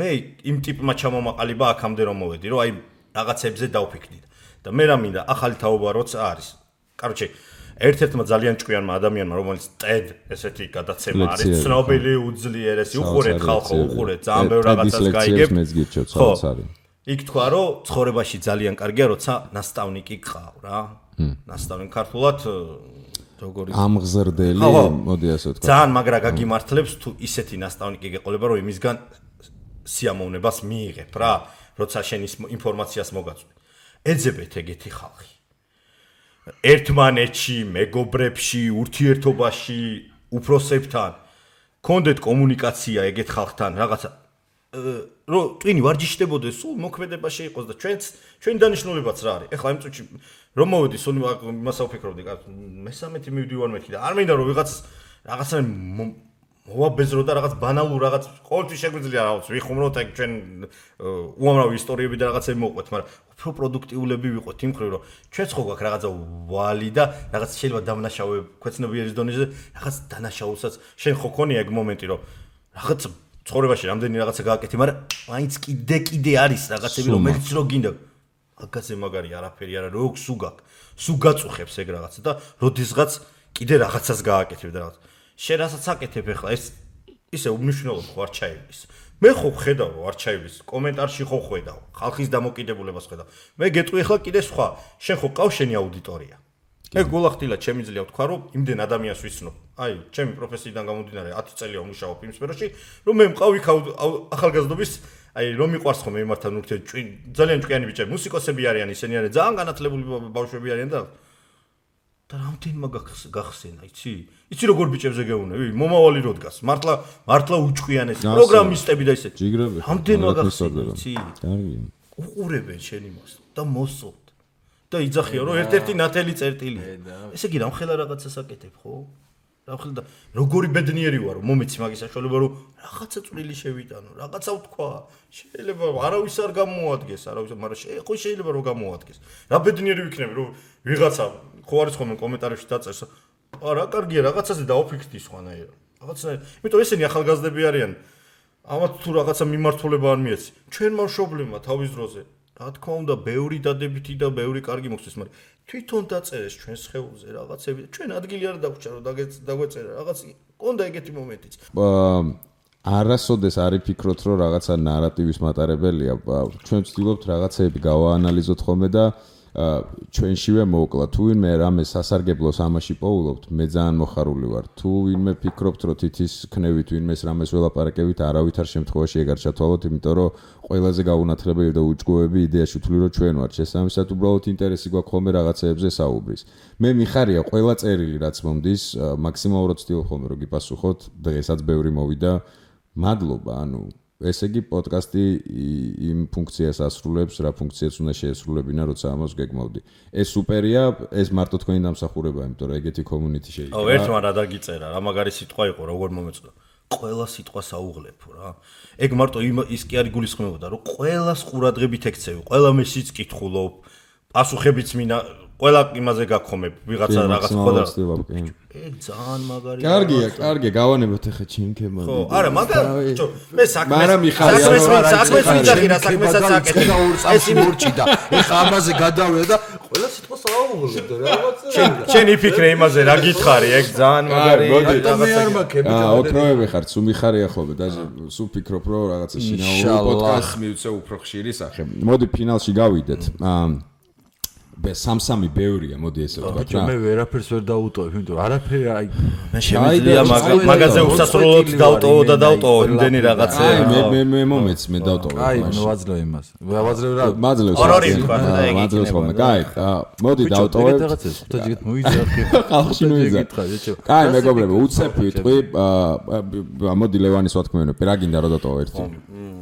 მე იმ ტიპმა ჩამომაყალიბა აქამდე რომ მოვედი, რომ აი რაღაცებზე დავფიქრდი და მე რა მინდა ახალი თაობა როცა არის. კაროჩე, ერთ-ერთმა ძალიან ჭკვიანმა ადამიანმა, რომელიც TED ესეთი გადაცემა არის, ცნობილი უძლიერესი, უყურეთ ხალხო, უყურეთ, ძალიან ბევრ რაღაცას გაიგებ. ხო, იქ თქვა, რომ ცხოვრებაში ძალიან კარგია, როცა ნასწავლნიკი გყავ რა. ნასწავლნი ქართულად როგორი
ამღზრდელი, მოდი ასე ვთქვა.
ძალიან მაგრა გაგიმართლებს თუ ისეთი ნასწავლნიკი გეყოლება, რომ იმისგან სიამოვნებას მიიღებ რა, როცა შენ ის ინფორმაციას მოგაწვი. ეძებეთ ეგეთი ხალხი. ერთმანეთში, მეგობრებში, ურთიერთობაში, უფროსებთან, კონდეთ კომუნიკაცია ეგეთ ხალხთან, რაღაცა რომ ტვინი ვარჯიშდებოდეს, სულ მოქმედებაში იყოს და ჩვენი დანიშნულებაც რა არის. ეხლა იმ წუთში რომ მოვედი, სულ იმას ავფიქრობდი, მე-13 მივდივარ მეთქი და არ მინდა რომ რაღაცა მოვაბეზრო და რაღაც ბანალურ რაღაც ყოველთვის შეგვიძლია რაღაც ვიხუმროთ ეგ ჩვენ უამრავი ისტორიები და რაღაცები მოვყვეთ, მაგრამ უფრო პროდუქტიულები ვიყოთ იმ ხრივ, რომ ჩვენც ხო გვაქვს რაღაცა ვალი და რაღაც შეიძლება დამნაშავე ქვეცნობიერის დონეზე რაღაც დანაშაულსაც შენ ხო ქონია ეგ მომენტი, რომ რაღაც ცხოვრებაში რამდენი რაღაცა გააკეთე, მაგრამ მაინც კიდე არის რაღაცები, რომელიც რო გინდა აგაზე მაგარი არაფერი არა, როგ სუ გაწუხებს ეგ რაღაცა და როდესღაც კიდე რაღაცას გააკეთებ და რაღაც შენ რასაც აკეთებ ახლა ეს ისე უმნიშვნელო ხო არ ჩაივლის. მე ხო ხედავ რომ არ ჩაივლის, კომენტარში ხო ხედავ, ხალხის დამოკიდებულებას ხედავ. მე გეტყვი ახლა კიდე სხვა, შენ ხო ყავს შენი აუდიტორია. ეგ გულახდილად შემიძლია ვთქვა რომ იმდენ ადამიანს ვიცნობ. აი, ჩემი პროფესიიდან გამომდინარე 10 წელია ვმუშაობ იმ სფეროში, რომ მე მყავ იქ ახალგაზრდობის აი რომ მიყვარს ხომ იმართან ურთიერთობა ძალიან ჭკვიანი ბიჭები, მუსიკოსები არიან, ისინი არიან ძალიან განათლებული ბავშვები არიან და რამდენმა გახსენა, იცი როგორ ბიჭებზე გეუნები? მომავალი რო დგას. მართლა უჭკვიანესი პროგრამისტები და ისეთი. რამდენმა გახსენა, იცი? კარგი. უყურებენ შენ იმას და მოსწონთ. და იძახია რომ ერთ-ერთი ნათელი წერტილია. ესე იგი რამხელა რაღაცას აკეთებ, ხო? რამხელა და როგორი ბედნიერი ვარ, რომ მომეცი მაგის საშუალება, რომ რაღაცა წვრილი შევიტანო, რაღაცა ვთქვა. შეიძლება არავის არ გამოადგეს, მაგრამ შეიძლება რომ გამოადგეს. რა ბედნიერი ვიქნები, რომ ვიღაცა ხო არის ხოლმე კომენტარებში დაწერს. რა კარგია, რაღაცაზე დაუფიქრდი სხვანაირად. რაღაცნაირად. იმიტომ ესენი ახალგაზრდები არიან. ამათ თუ რაღაცა მიმართულება არ მიეცი. ჩვენმა მშობლებმა თავის დროზე, რა თქმა უნდა, ბევრი დადებითი და ბევრი კარგი მოხდეს, მაგრამ თვითონ დაწერეს ჩვენს ხეულზე რაღაცები. ჩვენ ადგილი არ დაგვჭა რომ დაგვეწერა რაღაც. კონდა ეგეთი მომენტიც.
არასოდეს არ იფიქროთ რომ რაღაცა ნარატივის მატარებელია. ჩვენ ვცდილობთ რაღაცეები გავაანალიზოთ ხოლმე და ჩვენშივე მოვკლა. თუ ვინმე რამე სასარგებლოს ამაში პოულობთ, მე ძალიან მოხარული ვარ. თუ ვინმე ფიქრობთ, რომ თითის ქნევით ვინმეს რამეს ველაპარაკებით, არავითარ შემთხვევაში ეგ არ ჩათვალოთ, იმიტომ რომ ყველაზე გაუნათლებელი და უჭკუები იდეაში ვთვლი, რომ ჩვენ ვართ. შესაბამისად, უბრალოდ ინტერესი გვაქვს ხოლმე რაღაცეებზე საუბრის. მე მიხარია ყველა წერილი, რაც მომდის, მაქსიმალურად ვცდილობ ხოლმე რომ გიპასუხოთ. დღესაც ბევრი მოვიდა. მადლობა, ესე იგი პოდკასტი იმ ფუნქციას ასრულებს, რა ფუნქციას უნდა შეესრულებინა, როცა ამას გეგმავდი. ეს სუპერია, ეს მარტო თქვენი დამსახურებაა, იმიტომ რომ ეგეთი community შეიძლება.
ერთმა რა დაგიწერა, რა მაგარი სიტყვა იყო, როგორ მომეწოდა. ყველა სიტყვას აუღლებო რა. ეგ მარტო ის კი არ იგულისხმებოდა, რომ ყველას ყურადღებით ექცევი, ყველა მესიც კითხულობ, პასუხებიც მინა ყველა იმაზე გაგხომებ, ვიღაცა რაღაც ხოდა. ეგ ძალიან მაგარია.
კარგია, გავანებოთ ახლა ჩემკემალ.
ხო, არა, მაგრამ მე საქმეს ვიძახი რა საქმესაც აკეთებ.
ეს იმურჭი და ეხა ამაზე გადავედა და ყველა სიტყვას საუბრობ და რაღაცა.
შენ იფიქრე იმაზე რა გითხარი, ეგ ძალიან მაგარი
რაღაცა.
ოქროები ხარ, სულ მიხარია ხოლმე და სულ ფიქრობ რომ რაღაცა შინაური პოდკასტი მივცე უფრო ხშირი სახე. მოდი ფინალში გავიდეთ. სამ-სამი ბევრია, მოდი ესე ვთქვათ რა.
მე ვერაფერს ვერ დავუტოვებ, იმიტომ რომ არაფერი აი
მე შემიძლია მაგაზე უსასრულოდ დავტოვო და დავტოვო იმდენი რაღაცა.
აი მე მომეც მე დავტოვე.
აი ვაძლევ იმას. ვაძლევ რა.
მაძლევს.
ორი თქვა და ეგ
მაძლევს ხოლმე. კაი, მოდი დავტოვებ.
რაღაცას ხუთაჯიგით მოიძახ.
ხალხში მოიძახ. კაი, მეგობრებო, უცებ ვიტყვი, მოდი ლევანის ვათქმევინებ, რა გინდა რომ დავტოვო ერთი.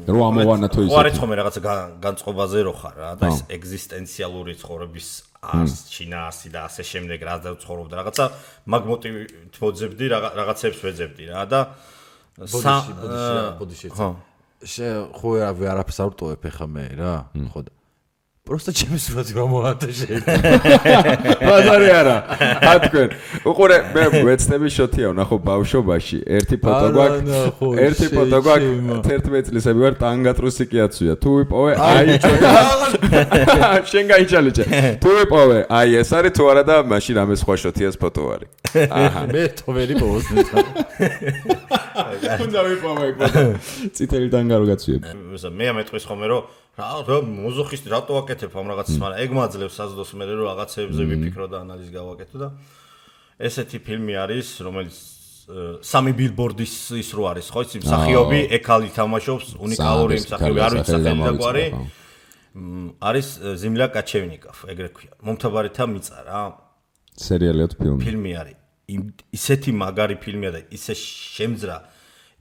რო ამოვანა თუ ისე.
ხო არის ხოლმე რაღაცა განწყობაზე რო ხარ რა და ეს ეგზისტენციალური ცხოვრების შინაარსი და ასე შემდეგ რა დავცხოვრობ და რაღაცა მაგ მოტივით მოძებდი რაღაცებს ვეძებდი რა და
ბოდიში ხო არაფერს არ ვტოვებ ხა მე რა ხო და просто ჩემი სურათი გამოვადა შეიძლება
ბაზარი არა თქვენ უყურე მე ვეცდები შოთია ვნახო ბავშვობაში ერთი ფოტო გვაქვს 11 წლისები ვარ ტანგატრუსი კიაცვია თუ ვიპოვე აი შენ გაიჩალიჭე თუ ვიპოვე აი ეს არის თუ არა და მაშინ ამე სხვა შოთიას ფოტო არის აჰა
მე თო ვერი პოვოს ნეცა
უნდა ვიპოვე ფოტო წითელი ტანგა რო გაცვიებ
მე ამეტყვის ხოლმე რომ რა მოზოხისტი რატო ვაკეთებ ამ რაღაცას მაგრამ ეგ მაძლევს საზდოს მე რომ რაღაცებზე ვიფიქრო და ანალიზი გავაკეთო და ესეთი ფილმი არის რომელიც სამი ბილბორდის ის რო არის ხო იცი მსახიობი ეკალი თამაშობს უნიკალური მსახიობი არ ვიცი სახელი და გვარი არის ზიმლა კაჩევნიკოვ ეგრე ქვია მომთაბარეთა მიწა რა
სერიალიო
ფილმი არის ისეთი მაგარი ფილმია და ისე შემძრა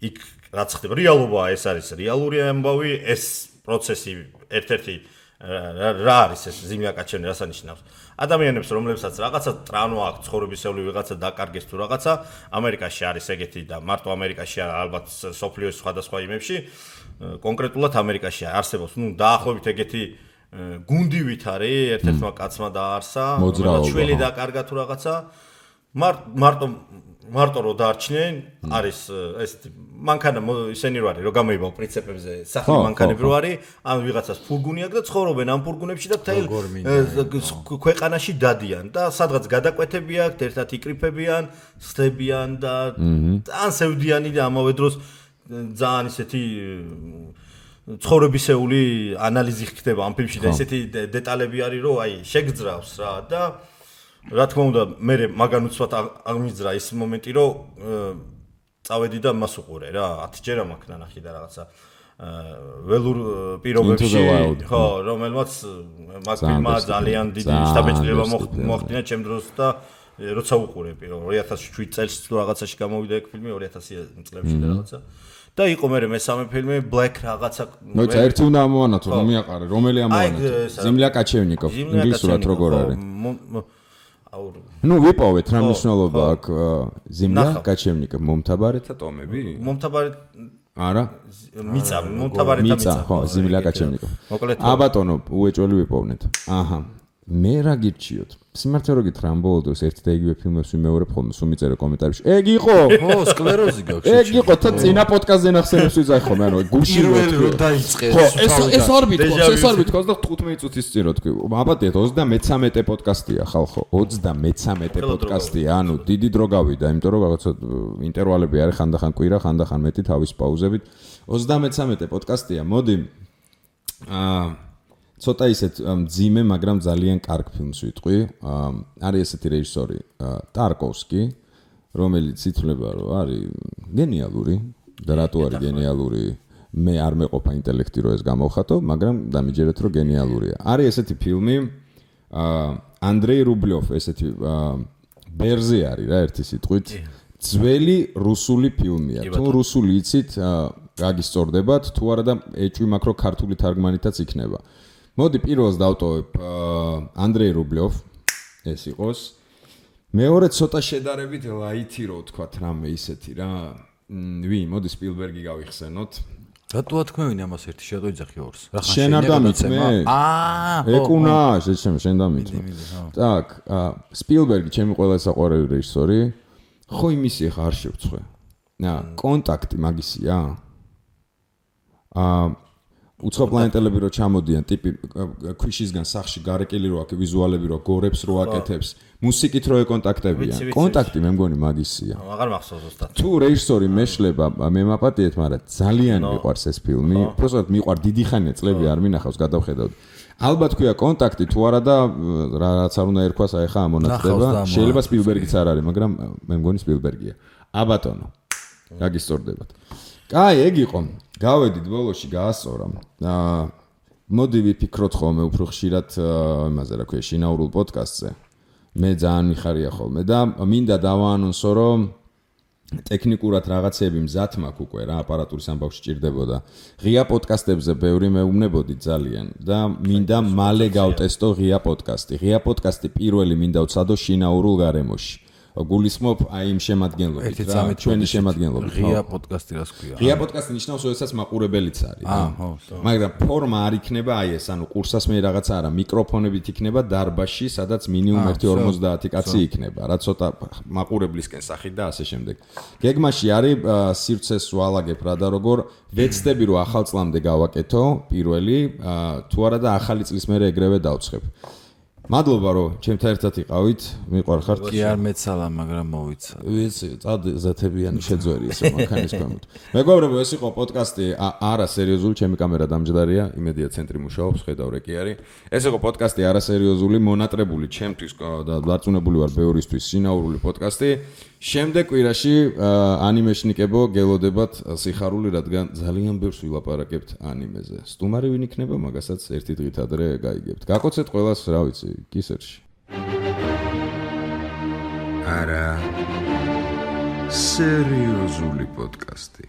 იქ რაც ხდება რეალობაა ეს არის რეალური ამბავი ეს პროცესი ერთ-ერთი რა არის ეს ზიმლა კაჩევნი რას ანიშნავს ადამიანებს რომლებსაც რაღაცა ტრანო აქვს ცხოვრებისეული ვიღაცა დაკარგეს თუ რაღაცა ამერიკაში არის ეგეთი და მარტო ამერიკაში ალბათ სოფლიოს სხვადასხვა იმებში კონკრეტულად ამერიკაში არსებობს ნუ დაახლოებით ეგეთი გუნდივით არის ერთ-ერთმა კაცმა დაარსა შვილი დაკარგა თუ რაღაცა მარტო რო დაარჩნენ არის ეს მანქანა ისენი რო არის რო გამოიბავ პრინციპებზე სახლი მანქანები რო არის ან ვიღაცას ფურგუნი აქვს და ცხოვრობენ ამ ფურგუნებში და თელ ქვეყანაში დადიან და სადღაც გადაკვეთები აქვს ერთად იკრიფებიან ხდებიან და ან სევდიანი და ამავე დროს ძალიან ისეთი ცხოვრებისეული ანალიზი ხდება ამ ფილმში და ესეთი დეტალები არის რომ აი შეგძრავს რა და რა თქმა უნდა მე მაგან უცბად აღმიძრა ის მომენტი რომ წავედი და მას უყურე რა 10 ჯერ მაქვს ნახი და რაღაცა ველურ პირობებში ხო რომელმაც მაგ ფილმმა ძალიან დიდი შტაბეჭდილება მოახდინა ჩემ დროს და როცა უყურე პირველ 2007 წელს თუ რაღაცაში გამოვიდა ეგ ფილმი 2000 წლებში და რაღაცა და იყო მე მესამე ფილმი Black რაღაცა
მოიცა ერთი უნდა ამოვანათო რომ მიაყარე რომელი ამოვანათო ზიმლა კაჩევნიკოვ ინგლისურად როგორ არის ნუ ვიპოვეთ რა მნიშვნელობა აქვს ზიმლა კაჩევნიკოვ მომთაბარეთა ტომები
მომთაბარეთ
არა
მომთაბარეთა
მიწა ხო ზიმლა კაჩევნიკოვ აბატონო უეჭველი ვიპოვნეთ აჰა მე რა გირჩიოთ სიმართლე რო გითხრა ამ ბოლო დროს ერთი და იგივე ფილმებს ვიმეორებ ხოლმე სულ მიწერე კომენტარებში ეგ იყო
ხო სკლეროზი გაქვს
ეგ იყო თა წინა პოდკასტზე ნახსენებს ვიძახ ხოლმე ანუ გულში
რო დაიწყეს
ხო ეს არ ვითქოს და 15 წუთის წინ რო თქვი აბატეთ 33 პოდკასტია ხალხო 33 პოდკასტია ანუ დიდი დრო გავიდა იმიტომ რომ რაღაცა ინტერვალები არის ხანდახან კვირა ხანდახან მეტი თავის პაუზებით 33 პოდკასტია მოდი ცოტა ისეთ მძიმე, მაგრამ ძალიან კარგ ფილმს ვიტყვი. არის ესეთი რეჟისორი ტარკოვსკი, რომელიც ითვლება, რომ არის გენიალური და რატო არის გენიალური? მე არ მეყოფა ინტელექტი რომ ეს გამოვხატო, მაგრამ დამიჯერეთ რომ გენიალურია. არის ესეთი ფილმი ანდრეი რუბლიოვ, ესეთი ბერზე არის რა ერთი სიტყვით. ძველი რუსული ფილმია. თუ რუსული იცით, გაგისწორდებათ, თუ არა და ეჭვი მაქვს რომ ქართული თარგმანითაც იქნება. მოდი პირველს დავტოვებ ანდრეი რუბლიოვ ეს იყოს მეორე ცოტა შედარებით ლაითი რო ვთქვათ რამე ისეთი რა მოდი სპილბერგი გავიხსენოთ
რატო თქვენი ამას ერთი შედოიძახი ორს
რა ხან შენ არ დამიწმე ეკუნა შენ დამიწმე так სპილბერგი ჩემი ყველა საყვარელი რეჟისორი ხო იმისი ხა არ შევწყვე კონტაქტი მაგისია უცხოპლანეტელები რო ჩამოდიან, ტიპი ქვიშისგან სახში გარეკილი რო აქ ვიზუალები რო გორებს რო აკეთებს, მუსიკით რო ეკონტაქტებიან. კონტაქტი მე მგონი მაგისია.
აღარ მახსოვს ზუსტად.
თუ რეჟისორი მეშლება, მე მაპატიეთ, მაგრამ ძალიან მიყვარს ეს ფილმი. უბრალოდ მიყვარ დიდი ხანია წლები არ მინახავს, გადავხედავთ. ალბათ ქვია კონტაქტი თუ არა და რაც არ უნდა ერქვას, აი ხა ამონაცდება. შეიძლება სპილბერგიც არ არის, მაგრამ მე მგონი სპილბერგია. აბატონო. გაგისწორდებათ. კაი, ეგ იყო. გავედით ბოლოში გაასწორა. მოდი ვიფიქროთ ხოლმე უფრო ხშირად იმაზე, რა ქვია, შინაურულ პოდკასტზე. მე ძალიან მიხარია ხოლმე და მინდა დავაანონსო, რომ ტექნიკურად რაღაცები მზად მაქვს უკვე რა, აპარატურის ამბავში ჭირდებოდა. ღია პოდკასტებზე ბევრი მეუბნებოდი ძალიან და მინდა მალე გავტესტო ღია პოდკასტი. ღია პოდკასტი პირველი მინდა ვცადო შინაურულ გარემოში. გულისხმობ აი იმ შემადგენლობით რა, ჩვენი შემადგენლობით.
ღია პოდკასტი რას ქვია?
ღია პოდკასტი ნიშნავს, როდესაც მაყურებელიც არის. მაგრამ ფორმა არ იქნება აი ეს, ანუ კურსას მე რაღაცა არა, მიკროფონებით იქნება დარბაზში, სადაც მინიმუმ 1:50 კაცი იქნება, რა ცოტა მაყურებლისკენ სახით და ასე შემდეგ. გეგმაში არის სივრცეს ვალაგებ რა და როგორ ვეცდები რომ ახალ წლამდე გავაკეთო პირველი, თუ არა და ახალი წლის მერე ეგრევე დავცხებ. მადლობა რომ ჩემთან ერთად იყავით, მიყვარხართ.
კი არ მეცალა, მაგრამ მოვიცა.
ვიცი, წადზეთებიანი შეძვერი ესე მანქანის ქვემოთ. მეგობრებო, ეს იყო პოდკასტი არა სერიოზული, ჩემი კამერა დამჯდარია, იმედია ცენტრი მუშაობს, ხედავ რეკი არის. ეს იყო პოდკასტი არა სერიოზული, მონატრებული ჩემთვის და დარწმუნებული ვარ ბევრისთვის შინაურული პოდკასტი. შემდეგ კვირაში ანიმეშნიკებო გელოდებათ სიხარული, რადგან ძალიან ბევრს ვილაპარაკებთ ანიმეზე. სტუმარი ვინ იქნება, მაგასაც ერთი დღით ადრე გაიგებთ. გაკოცეთ ყველას, რა ვიცი, კისერში.
არა სერიოზული პოდკასტი.